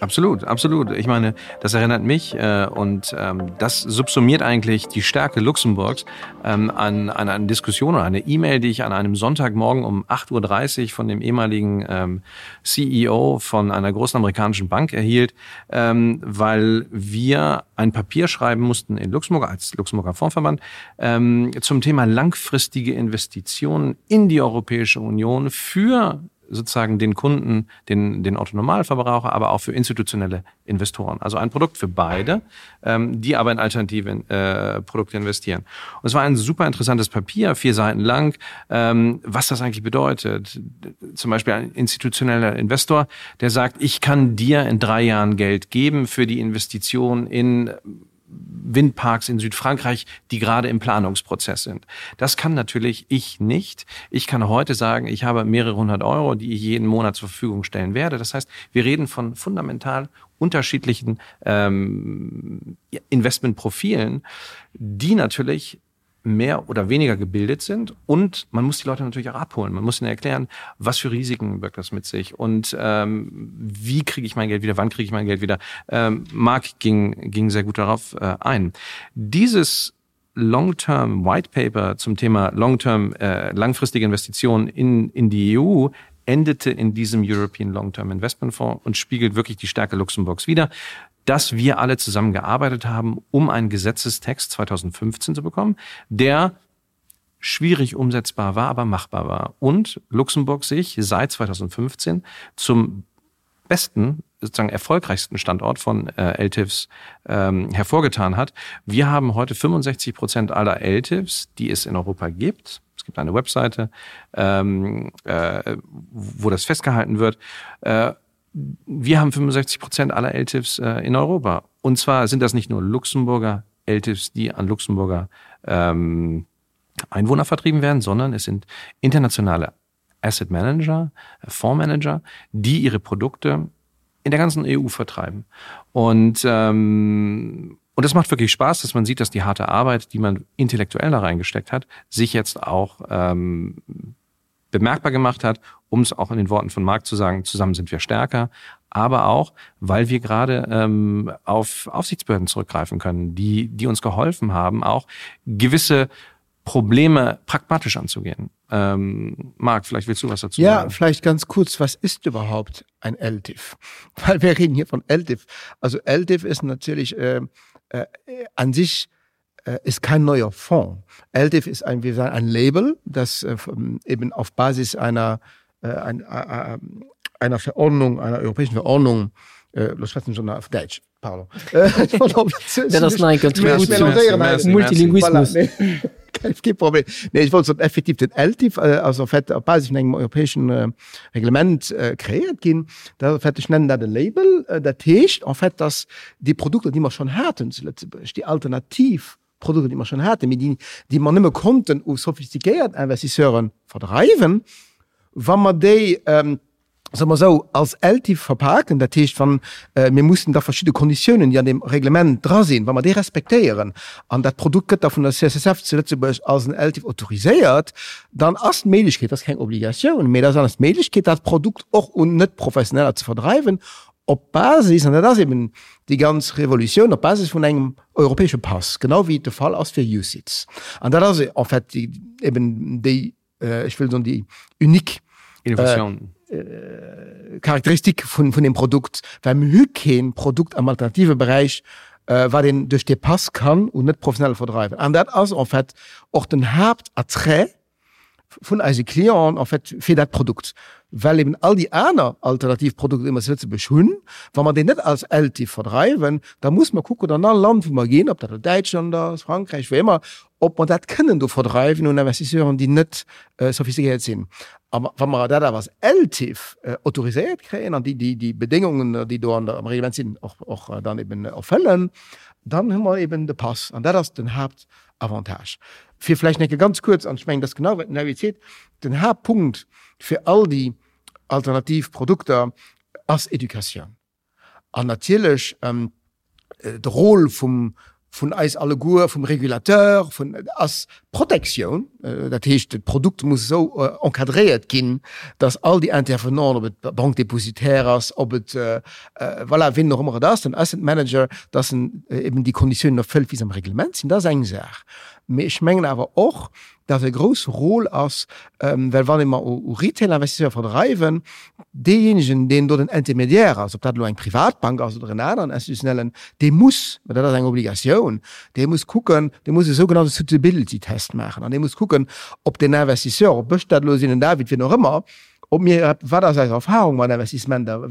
Absolut, absolut. Ich meine, das erinnert mich äh, und ähm, das subsumiert eigentlich die Stärke Luxemburgs ähm, an, an eine Diskussion oder eine E-Mail, die ich an einem Sonntagmorgen um 8.30 Uhr von dem ehemaligen ähm, CEO von einer großen amerikanischen Bank erhielt, ähm, weil wir ein Papier schreiben mussten in Luxemburg als Luxemburger Fondsverband ähm, zum Thema langfristige Investitionen in die Europäische Union für sozusagen den Kunden, den, den Autonomalverbraucher, aber auch für institutionelle Investoren. Also ein Produkt für beide, ähm, die aber in alternative äh, Produkte investieren. Und es war ein super interessantes Papier, vier Seiten lang, ähm, was das eigentlich bedeutet. Zum Beispiel ein institutioneller Investor, der sagt, ich kann dir in drei Jahren Geld geben für die Investition in Windparks in Südfrankreich, die gerade im Planungsprozess sind. Das kann natürlich ich nicht. Ich kann heute sagen, ich habe mehrere hundert Euro, die ich jeden Monat zur Verfügung stellen werde. Das heißt, wir reden von fundamental unterschiedlichen ähm, Investmentprofilen, die natürlich mehr oder weniger gebildet sind. Und man muss die Leute natürlich auch abholen. Man muss ihnen erklären, was für Risiken wirkt das mit sich und ähm, wie kriege ich mein Geld wieder, wann kriege ich mein Geld wieder. Ähm, Marc ging, ging sehr gut darauf äh, ein. Dieses Long-Term White Paper zum Thema Long-Term äh, langfristige Investitionen in, in die EU endete in diesem European Long-Term Investment Fonds und spiegelt wirklich die Stärke Luxemburgs wider dass wir alle zusammengearbeitet haben, um einen Gesetzestext 2015 zu bekommen, der schwierig umsetzbar war, aber machbar war. Und Luxemburg sich seit 2015 zum besten sozusagen erfolgreichsten Standort von äh, LTIFs ähm, hervorgetan hat. Wir haben heute 65 Prozent aller LTIFs, die es in Europa gibt. Es gibt eine Webseite, ähm, äh, wo das festgehalten wird. Äh, wir haben 65 Prozent aller LTIFs äh, in Europa. Und zwar sind das nicht nur Luxemburger LTIFs, die an Luxemburger ähm, Einwohner vertrieben werden, sondern es sind internationale Asset Manager, Fondsmanager, die ihre Produkte in der ganzen EU vertreiben. Und, ähm, und das macht wirklich Spaß, dass man sieht, dass die harte Arbeit, die man intellektuell da reingesteckt hat, sich jetzt auch ähm, bemerkbar gemacht hat, um es auch in den Worten von Marc zu sagen, zusammen sind wir stärker, aber auch, weil wir gerade ähm, auf Aufsichtsbehörden zurückgreifen können, die, die uns geholfen haben, auch gewisse Probleme pragmatisch anzugehen. Ähm, Marc, vielleicht willst du was dazu ja, sagen. Ja, vielleicht ganz kurz, was ist überhaupt ein LTIF? Weil wir reden hier von LTIF. Also LTIF ist natürlich äh, äh, an sich äh, ist kein neuer Fonds. LTIF ist ein, wir sagen, ein Label, das äh, eben auf Basis einer, äh, ein, äh, einer Verordnung, einer europäischen Verordnung, äh, schon auf Deutsch, pardon. Multilinguismus. Kee Problem. Nee, ech wollt soen, effektiv den ELTIF ass en fait op Basis vun engem europäeschen Reglement kreéiert ginn. Dat en fait, ech nennen dat e Label, dat heescht en fait, dass déi Produkter, déi mer schonn haten zu Lëtzebuerg, déi alternativ Produkter, déi mer schonn haten, mee déi, déi mer nëmme konnten u sophistiquéiert Investisseure verdreiwen, wa mer déi, soe mer esou, als ELTIF verpaken, dat heescht, wann mir mussen da verschidde Konditiounen, déi an deem Reglement dra sinn, wa mer déi respektéieren an dat Produkt gëtt da vun der CSSF zu Lëtzebuerg als en ELTIF autoriséiert, dann ass d'Méiglechkeet, dat ass keng Obligatioun, mee dat ass d'Méiglechkeet, dat Produkt och un Net-Professioneller ze verdreiwen, op Basis, an dat ass eben déi ganz Revolutioun, op Basis vun engem europäesche Pass, genau wéi et de Fall ass fir UCITS. An dat ass en fait eben déi ech wëll soen, déi unique Innovation. Charakteristik vun vun dem Produkt, well mir hu kee Produkt am alternative Beräich, wat een duerch dee Pass kann un Net-Professionelle verdreiwen. An dat ass en fait och den Haaptattrait vun eise Clienten en fait fir dat Produkt, well eben all déi aner alternativ Produkter, déi mer zu Lëtzebuerg hunn, wa mer déi net als ELTIF verdreiwen, da muss mer kucken an all Land, wou mer ginn, ob dat elo Däitschland ass, Frankräich, wou ëmmer, ob mer dat kënnen do verdreiwen un Investisseuren, déi net sophistiquéiert sinn. A wa mer dat awer als ELTIF autoriséiert kréien an déi déi Bedéngungen, déi do an der am Reglement sinn, och och dann eben erfëllen, dann hu mer eben de Pass. An dat ass den Haaptavantage. Fir vläicht nach eng Kéier ganz kuerz, an ech mengen, dat ass genau, wat den Larry seet, den Haaptpunkt fir all déi alternativ Produkter ass Educatioun. An natierlech de Rôle vum. vun eis alleguer, vum Régulateur, vun, ass Protektioun. Dat heescht, d'Produkt muss esou encadréiert ginn, dass all déi Intervenanten, ob et d'Banque dépositaire ass, ob et, voilà, wien och ëmmer et ass, den Asset Manager, dass en eben déi Konditiounen erfëllt, wéi se am Reglement sinn. Dat ass eng Saach. Mee ech mengen awer och, dass e grousse Rôle ass, well wann ee mer u Retail-Investisseur verdreiwen, deejéinegen, deen do den Intermédiaire ass, ob dat elo eng Privatbank ass oder en aneren institutionellen, dee muss, mä dat ass eng Obligatioun, dee muss kucken, dee muss e sougenannte Suitability-Test maachen an dee muss kucken, ob den Investisseur, ob ech dat elo sinn, den David, wien och ëmmer, ob mir, wat ass eis Erfahrung mat Investissementer,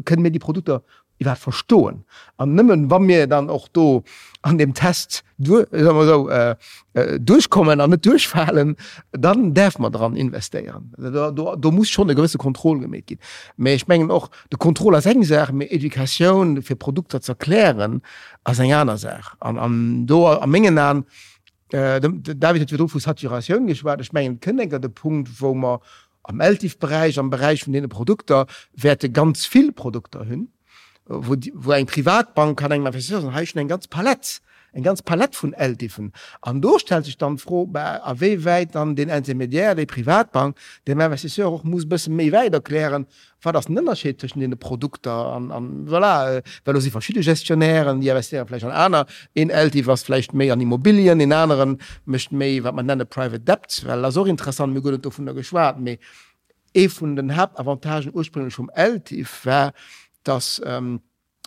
kënnen mir déi Produkter iwwerhaapt verstoen. An nëmmen wa mir dann och do an deem Test duer, soe mer esou, duerchkommen an net duerchfalen, dann däerfe mer dran investéieren. Do, do, do muss schonn e gewësse Contrôle gemeet ginn. Mä ech mengen och, de Contrôle ass eng Saach, mä Educatioun fir Produkter ze erklären ass eng aner Saach. An, an do a mengen Aen, de David huet virdru vu Saturatioun geschwat, ech mengen, et kënnt enker de Punkt, wou mer Am LTIF-Beräich, am Beräich vun deene Produkter, wäerte ganz vill Produkter hunn, wou, wou eng Privatbank kann engem Investisseur soen, hei ech hunn eng ganz Palett, eng ganz Palett vun LTIFen. An do stellt sech dann d'Fro, bah, a wéi wäit dann deen Intermédiaire, déi Privatbank, dem Investisseur och muss e bësse méi wäit erklären, Wat ass den Ënnerscheed tëschent deene Produkter? An, an voilà, well do si verschidde Gestionnairen, déi investéiere vläicht an aner. Een LTIF ass vläicht méi an Immobilien, een anere mécht méi, wat mer nenne Private Debt, well ass och interessant, mir hu guer net dovunner geschwat, mee ee vun den Haaptavantagen ursprünglech vum LTIF war, dass,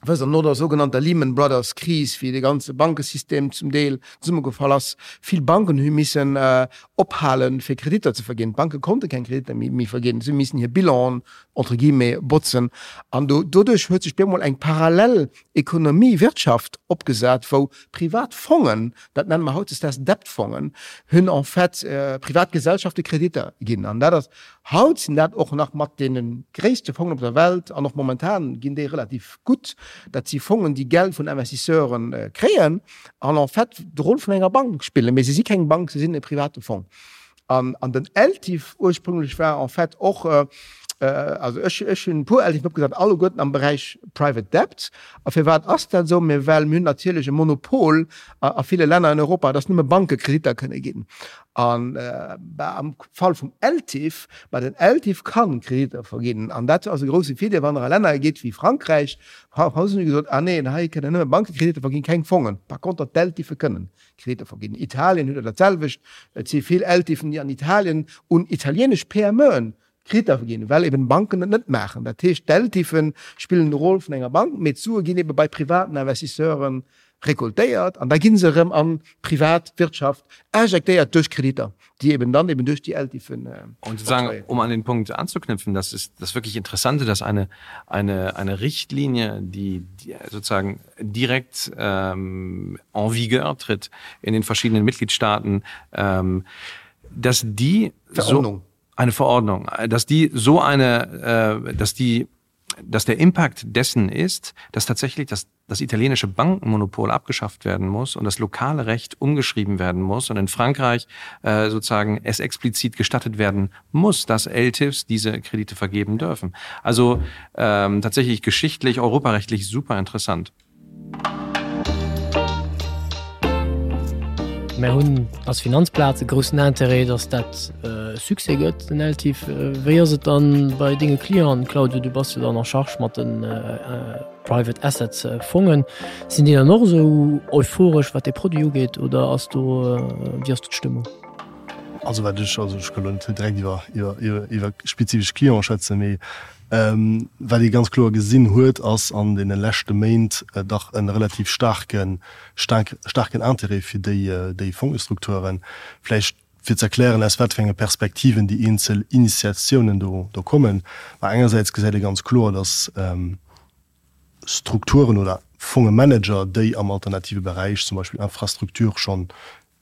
Wësst Der, no der sougenannter Lehman Brothers Kris, wéi de ganze Bankesystem zum Deel zesummegefall ass, vill Banken hu missen ophalen, fir Kreditter ze verginn. D'Banke konnte keng Kreditter méi verginn, si hu missen hir Bilanen, entre guillemets, botzen. An do, doduerch huet sech bemol eng parallel Ekonomie, Wirtschaft opgesat, wou privat Fongen, dat nenne mer hautdesdaags Debt-Fongen, hunn en fait privat Gesellschafte Kreditter ginn. An dat ass Haut sinn dat och nach mat deene gréisste Fongen op der Welt an och momentan ginn déi relativ gutt. Dat si Fongen, déi Geld vun Investisseure kréien an en fait de Rôle vun enger Bank spillen. Mee se si keng Bank, se sinn e private Fong. An den LTIF ursprünglech war en fait och, also ech ech hunn e puer LTIFen opgesat, alleguerten am Beräich Private Debt. A firwat ass dat esou? Mee well mir hunn natierlech e Monopol a ville Länner in Europa, dass nëmme Banke Kreditter kënne ginn. An am Fall vum LTIF, ma den LTIF kann Kreditter verginn. An dat ass e grousse Virdeel, wann Der a Länner gitt wéi Frankräich, Fransousen hu gesot, ah neen, hei kënnen nëmme Banke Kreditter verginn, keng Fongen. Par contre, d'LTIFe kënnen Kreditter verginn. Italien huet dat selwecht. Et si vill LTIFen, déi an Italien un italienesch PMEen Kreditter verginn, well eben Banken et net maachen. Dat heescht, d'LTIFe spillen de Rôle vun enger Bank, mee d'Sue ginn ebe bei privaten Investisseure recoltéiert an da gi se erëm an d'privat Wirtschaft injektéiert duerch Kreditter, déi eben dann eben duerch déi LTIFen Und sozusagen, um an den Punkt anzuknüpfen, das ist das wirklich Interessante, dass eine, eine, eine Richtlinie, die, die sozusagen direkt ähm, en vigueur tritt in den verschiedenen Mitgliedstaaten, ähm, dass die Verordnung. so eine Verordnung, dass die so eine, äh, dass die, dass der Impact dessen ist, dass tatsächlich das, das italienische Bankenmonopol abgeschafft werden muss und das lokale Recht umgeschrieben werden muss und in Frankreich äh, sozusagen es explizit gestattet werden muss, dass LTIFs diese Kredite vergeben dürfen. Also ähm, tatsächlich geschichtlich, europarechtlich super interessant. Mär hunn als Finanzplaz e groussen Intérêt, datt dat e Succès gëtt, den LTIF. Wéi ass et dann bei denge Clienten, Claudio? Du bass jo dann en charge mat de Private Assets Fongen. Sinn déi dann och esou euphoresch, wat dee Produit ugeet, oder ass do, wéi ass do d'Stëmmung? Also wat ech, also ech ka lo net direkt iwwer, iwwer, iwwer spezifesch Clienten schwätzen, mee Wat ee ganz kloer gesinn huet, ass an deene leschte Méint dach e relativ staarken, staarken Intérêt fir déi Fongestrukturen. Vläicht fir ze erklären, aus wat fir enge Perspektiven déi eenzel Initiatiounen do kommen. Ma engersäits gesäit ee ganz kloer, datt Strukturen oder Fongemanager, déi am alternative Beräich, zum Beispill Infrastruktur, schonn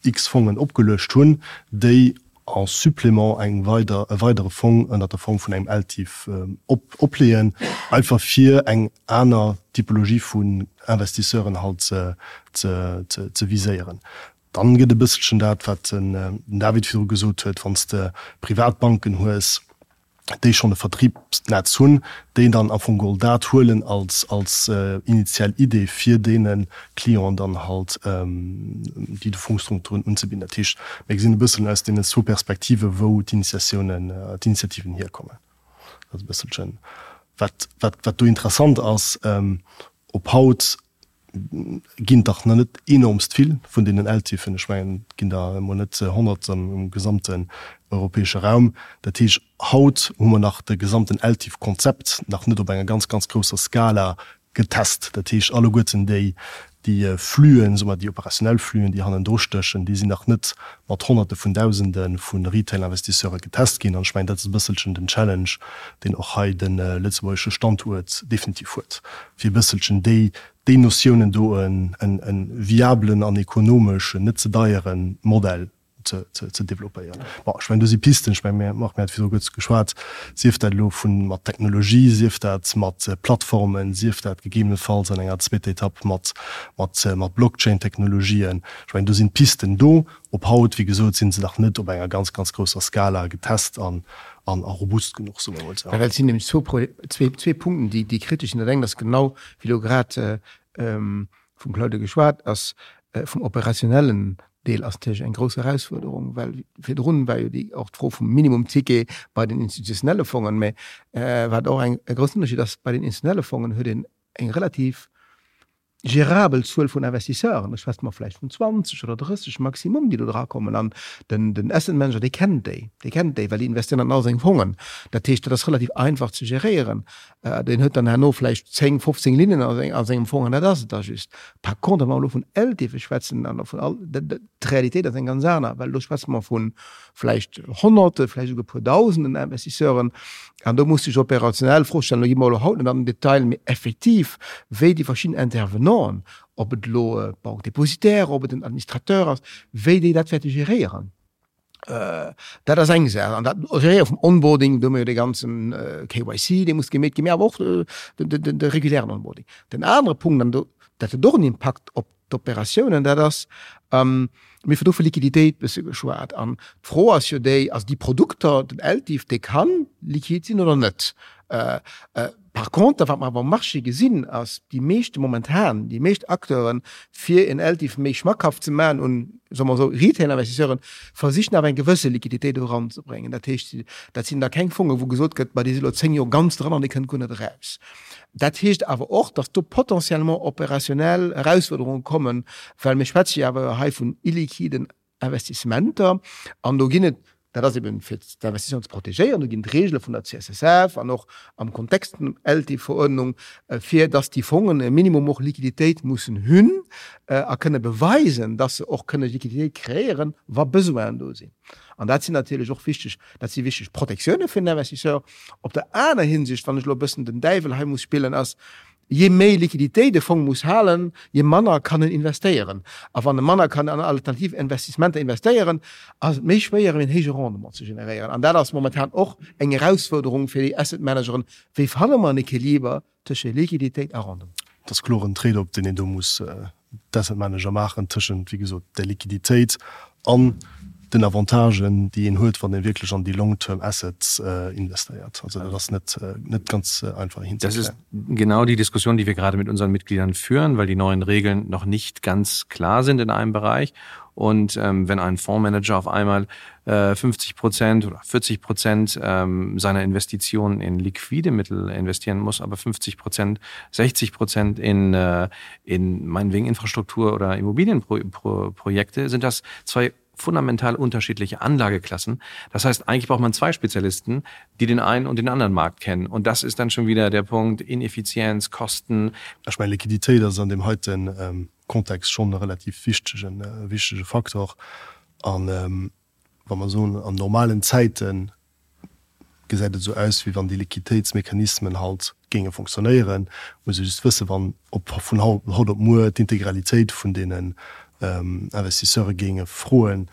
x Fongen opgeluecht hunn, déi en supplément eng weider, e weidere Fong ënnert der Form vun engem LTIF op, opleeën, einfach fir eng aner Typologie vun Investisseuren halt ze, ze, ze, ze viséieren. Dann gëtt e bësselchen dat, wat den David virdru gesot huet, wann s de Privatbanken hues. déi schonn e Vertriebsnetz hunn, déi dann am Fong geholl dat huelen als, als initial Idee, fir deene Clienten dann halt déi Fondsstrukturen unzebidden. Dat heescht, mir gesinn e bëssen aus deenen zwou Perspektive wou d'Initiatiounen, d'Initiativen hierkommen. Dat ass e bësselchen, wat, wat, wat do interessant ass, op haut ginn et dach nach net enormst vill vun deenen ELTIFen. Ech mengen, et ginn der emol net 100 am gesamten europäesche Raum. Dat heescht, haut hu mer nach de gesamten ELTIF-Konzept nach net op enger ganz, ganz grousser Skala getest. Dat heescht, alleguerten déi, déi Flüen, soe mer, déi operationell Flüen, déi hannendru stéchen, déi sinn nach net mat Honnerte vun Dausende vu Retail-Investisseure getest ginn. An ech mengen, dat ass e bësselchen den Challenge, deen och hei de lëtzebuergesche Standuert definitiv huet, fir e bësselchen déi, déi Notiounen do en, en viablen an ekonomesch net ze deiere Modell ze, ze, ze développéieren. Bon, ech mengen, do si Pisten, ech mengen, mir, Marc, mir hate virdru kuerz geschwat, sief dat elo vu mat Technologie, sief dat mat Plattformen, sief dat gegebenenfalls an enger zweeter Etapp mat, mat, mat Blockchain-Technologien. Ech mengen, do sinn d'Pisten do. Op haut, wéi gesot, si se nach net op enger ganz, ganz grousser Skala getest an, an, a robust genuch, soe mer emol esou. Well et sinn nämlech zwou Pro-, zwee, zwee Punkten, déi, déi kritesch sinn. Dat eng ass genau, wéi elo grad vum Claude geschwat ass, vum operationellen Deel ass natierlech eng grouss Erausfuerderung, well virdrun war jo déi och d'Fro vum Minimumticket bei den institutionelle Fongen. Mä wat och eng e groussen Ënnerschied ass, bei den institutionelle Fongen huet een eng relativ gérabel Zuel vun Investisseuren, ech schwätze mer vläicht vun 20 oder 30 maximum, déi do drakommen. An den, den Asset Manager, dee kennt déi, dee kennt déi, well déi investéieren an all seng Fongen. Dat heescht, dat ass relativ einfach ze geréieren. Deen huet dann herno vläicht 10, 15 Linnen a sengem Fong an dat ass et da just. Par contre, wa mer elo vun LTIFe schwätzen an vun all, d'Realitéit ass eng ganz aner, well do schwätze mer vu vläicht Honnerte, vläicht esouguer e puer Dausenden Investisseuren. An do muss sech operationell d'Fro stellen, do gi mer elo haut net an den Detail, mee effektiv, wéi déi verschidden Intervenanten, ob et elo d'Banque dépositaire, ob et den Administrateur ass, wéi déi dat wäerte geréieren. Dat ass eng Saach. An dat Geréiere vum Onboarding, do hu mer jo dee ganzen KYC, dee muss gemeet ginn, mee awer och de regulären Onboarding. Den anere Punkt, an do, dat huet och en Impakt op d'Operatiounen, dat ass, mir hu do vu Liquiditéit bësse geschwat. An d'Fro ass jo déi, also déi Produkter, den LTIF, dee ka liquid sinn oder net. Par conter, wat mer awer um Marché gesinn, ass, déi meeschte momentan, déi meescht Acteuren, fir en LTIF méi schmackhaft ze maachen un, soe mer esou, Retail-Investisseuren, versichen awer eng gewësse Liquiditéit do eranzebréngen. Dat heescht, dat sinn da keng Fongen, wou gesot gëtt, ma déi si elo 10 Joer ganz dran an déi kënnt guer net eraus. Dat heescht awer och, datt do potentiellement opérationnel Erausfuerderunge kommen, well mir schwätze jo awer hei vun illiquiden Investissementer an do ginn et, dat ass eben fir d'Investisseuren ze protegéieren, do ginn et Regele vun der CSSF an och am Kontext vun der LT-Verordnung, fir datt déi Fongen e Minimum och Liquiditéit mussen hunn a kënne beweisen, datt se och kënne Liquiditéit kreéieren, wa Besoinen do sinn. An dat sinn natierlech och wichteg, dat si wichteg Protektioune fir den Investisseur. Op der aner Hinsicht, wann ech elo e bëssen den Däiwel hei muss spillen, ass, Jee méi Liquiditéit e Fong muss halen, jee manner kann en investéieren. A wann e manner kann an alternativ Investissementer investéieren, ass et méi schwéier, en héije Rendement ze generéieren. An dat ass momentan och eng Erausfuerderung fir déi Asset Manageren, Wéi fanne mer en Equiliber tësche Liquiditéit a Rendement? Et ass kloer en Trade-off, deen een do muss d'Asset Manager maachen tëschent, wéi gesot, der Liquiditéit an den Avantagen, déi een huet, wann ee wierklech an déi long-term assets investéiert. Also dat ass net, net ganz einfach hinzekréien. Das ist genau die Diskussion, die wir gerade mit unseren Mitgliedern führen, weil die neuen Regeln noch nicht ganz klar sind in einem Bereich. Und ähm, wenn ein Fondsmanager auf einmal äh, 50 Prozent oder 40 Prozent ähm, seiner Investitionen in liquide Mittel investieren muss, aber 50 Prozent, 60 Prozent in, äh, in meinetwegen Infrastruktur oder Immobilienprojekte, sind das zwei fundamental unterschiedliche Anlageklassen. Das heißt, eigentlich braucht man zwei Spezialisten, die den einen und den anderen Markt kennen. Und das ist dann schon wieder der Punkt Ineffizienz, Kosten. Ich meine Liquidität ass an dem heiten ähm, Kontext schonn e relativ wichtegen, wichtege Faktor. An wa mer soen, an normalen Zäite gesäit et esou aus, wéi wann déi Liquiditéitsmechanismen halt géinge fonctionnéieren. Muss ee just wëssen, wann op vun haut op muer d'Integralitéit vun deenen Investisseure géinge froen,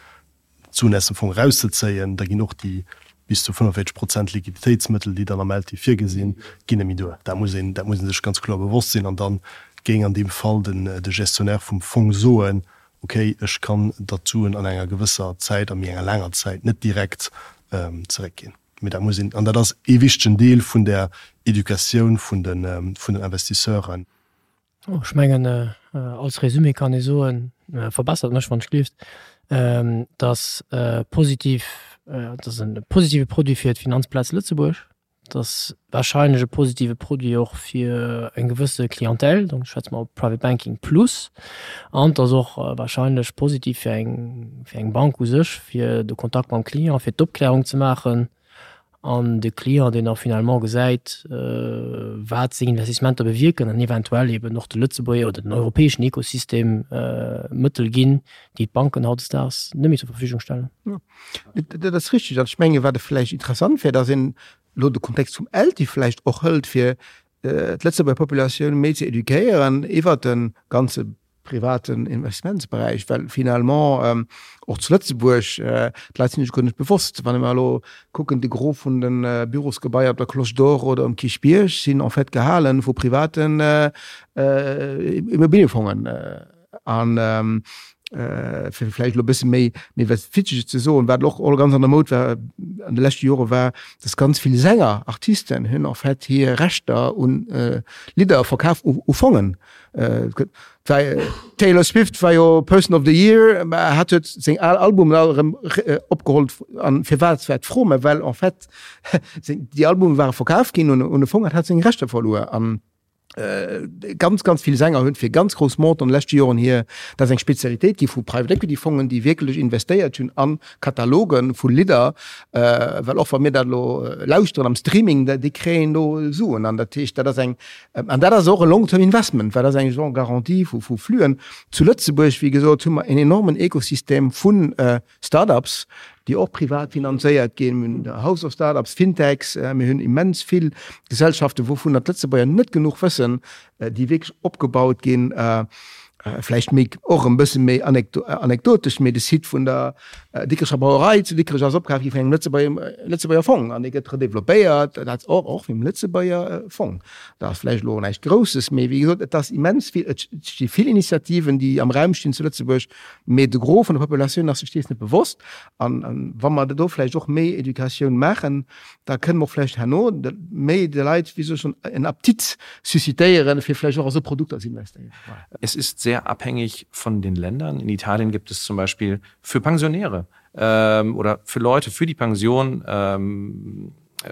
d'Suen aus dem Fong erauszezéien, da ginn och déi bis zu 45 Prozent Liquiditéitsmëttel, déi dann am LTIF virgesinn, ginn net méi duer. Dat muss een, dat muss ee sech ganz kloer bewosst sinn. An da géing an deem Fall den, de Gestionnaire vum Fong soen, Okay, ech kann der d'Suen an enger gewësser Zäit, a méi enger laanger Zäit, net direkt zeréckginn. Mee dat muss een, an dat ass ee wichtegen Deel vun der Educatioun vun de vun den Investisseuren. Ech mengen, als Résumé kann ee soen, verbessert mech wann ech gleeft, dass positiv, dass e positive Produit fir d'Finanzplaz Lëtzebuerg, dass wahrscheinlech e positive Produit och fir eng gewësse Clientèle, donc schwätze mer op Private Banking plus, an dass och wahrscheinlech positiv fir eng, fir eng Bank u sech, fir de Kontakt mam Client, fir d'Opklärung ze maachen an de Client, deen da finalement gesäit, wat seng Investissementer bewierken an eventuell eben och de Lëtzebuerger oder den europäeschen Ekosystem Mëttel ginn, déi d'Banken hautdesdaags net méi zur Verfügung stellen. Dat ass richtig. An ech menge wat e vläicht interessant wär, datt een elo de Kontext vum ELTIF vläicht och hëlt, fir d'Lëtzebuerger Populatioun méi ze eduquéieren iwwert de ganze privaten Investmentsberäich, well finalement och zu Lëtzebuerg d'Leit sinn sech guer net bewosst, wann mer elo kucken, de Gros vun de Bürosgebaier op der Cloche d'Or oder um Kierchbierg sinn en fait gehale vu privaten Immobiliefongen. An fir vläicht elo e bësse méi méi was Witzeges ze soen, wat och all ganz an der Moud war an de leschte Jore war, dass ganz vill Sänger, Artisten hunn en fait hir Rechter un Lidder verkaf u u Fongen. D'Taylor Swift war jo Person of the Year, mä hat huet seng al Albumen all erëm opgeholl. An firwat war d'Fro? Mä well en fait seng déi Albume ware verkaf ginn un un e Fong an hat seng Rechter verluer. An Ganz, ganz vill Sänger hunn fir ganz grouss Montanten an de leschte Joren hir, dat ass eng Spezialitéit gi vu Private Equity Fongen, déi wierklech investéiert hunn a Kataloge vu Lidder, well och wa mir dat elo lauschteren am Streaming, déi kréien do Suen. An dat heescht, dat ass eng, an dat ass och e Long-term Investment, well dat ass eng genre Garantie vu Fluen. Zu Lëtzebuerg, wéi gesot, hu mer en enormen Ekosystem vu Startups, déi och privat finanzéiert ginn. Mir hunn House of Startups, Fintechs, mir hunn immens vill Gesellschaften, wouvunner d'Lëtzebuerger net genuch wëssen, déi wierklech opgebaut ginn. Vläicht méi och e bësse méi anekdotesch, mee de Site vun der Dikrecher Brauerei zu Dikrech ass opkaf gi vun engem Lëtzebuerger Fong an dee gëtt redeveloppéiert, dat och och vum Lëtzebuerger Fong. Dat ass vläicht elo näischt Grousses, mee wéi gesot, et ass immens vill, et sti vill Initiativen, déi am Raum stinn zu Lëtzebuerg, Mee de Gros vun der Populatioun ass sech dees net bewosst. An wa mer do vläicht och méi Educatioun maachen, da kënne mer och vläicht herno méi de Leit, wéi soll ech soen, en Appetit suscitéieren, fir vläicht och a sou Produkter ze investéieren. Es ist sehr abhängig von den Ländern. In Italien gibt es zum Beispiel für Pensionäre oder für Leute für die Pension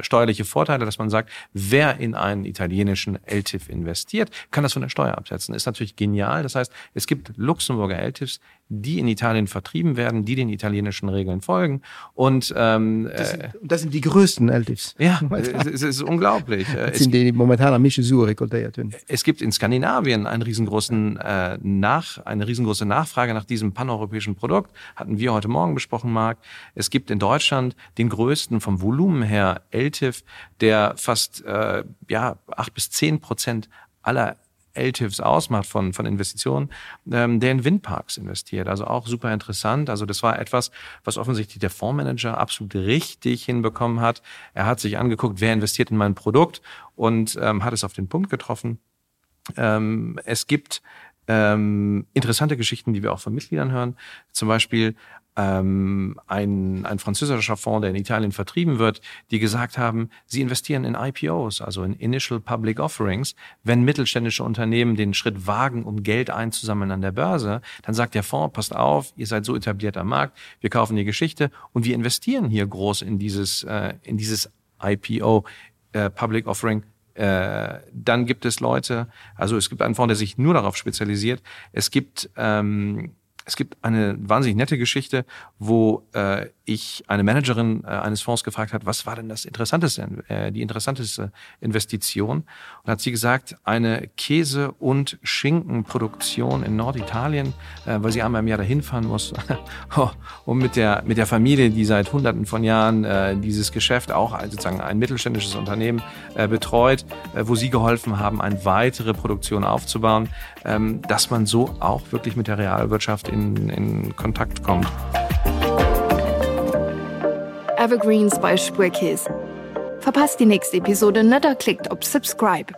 steuerliche Vorteile, dass man sagt, wer in einen italienischen LTIF investiert, kann das von der Steuer absetzen. Ist natürlich genial. Das heißt, es gibt Luxemburger LTIFs, die in Italien vertrieben werden, die den italienischen Regeln folgen. Und ähm, das, sind, äh, das sind die größten LTIFs. Ja, es ist unglaublich. Das sind die, die momentan am meisten Sue rekoltiert haben. Es gibt in Skandinavien einen riesengroßen, äh, nach, eine riesengroße Nachfrage nach diesem paneuropäischen Produkt. Hatten wir heute Morgen besprochen, Marc. Es gibt in Deutschland den größten vom Volumen her LTIF, der fast äh, ja, 8 bis 10 Prozent aller LTIFs ausmacht von, von Investitionen, ähm, der in Windparks investiert. Also auch super interessant. Also das war etwas, was offensichtlich der Fondsmanager absolut richtig hinbekommen hat. Er hat sich angeguckt, wer investiert in mein Produkt und ähm, hat es auf den Punkt getroffen. Ähm, es gibt ähm, interessante Geschichten, die wir auch von Mitgliedern hören. Zum Beispiel ähm, ein, ein französischer Fonds, der in Italien vertrieben wird, die gesagt haben, sie investieren in IPOs, also in Initial Public Offerings. Wenn mittelständische Unternehmen den Schritt wagen, um Geld einzusammeln an der Börse, dann sagt der Fonds, passt auf, ihr seid so etabliert am Markt, wir kaufen die Geschichte und wir investieren hier groß in dieses, äh, in dieses IPO äh, Public Offering äh, dann gibt es Leute, also es gibt einen Fonds, der sich nur darauf spezialisiert. Es gibt ähm, es gibt eine wahnsinnig nette Geschichte, wo äh, ich eine Managerin äh, eines Fonds gefragt hat, was war denn das interessanteste, äh, die interessanteste Investition? Und hat sie gesagt, eine Käse- und Schinkenproduktion in Norditalien, äh, weil sie einmal im Jahr dahin fahren muss, um mit der, mit der Familie, die seit hunderten von Jahren äh, dieses Geschäft auch sozusagen ein mittelständisches Unternehmen äh, betreut, äh, wo sie geholfen haben, eine weitere Produktion aufzubauen, ähm, dass man so auch wirklich mit der Realwirtschaft in, in Kontakt kommt. Evergreens bei Spuerkeess. Verpasst déi nächst Episode net a klickt op Subscribe.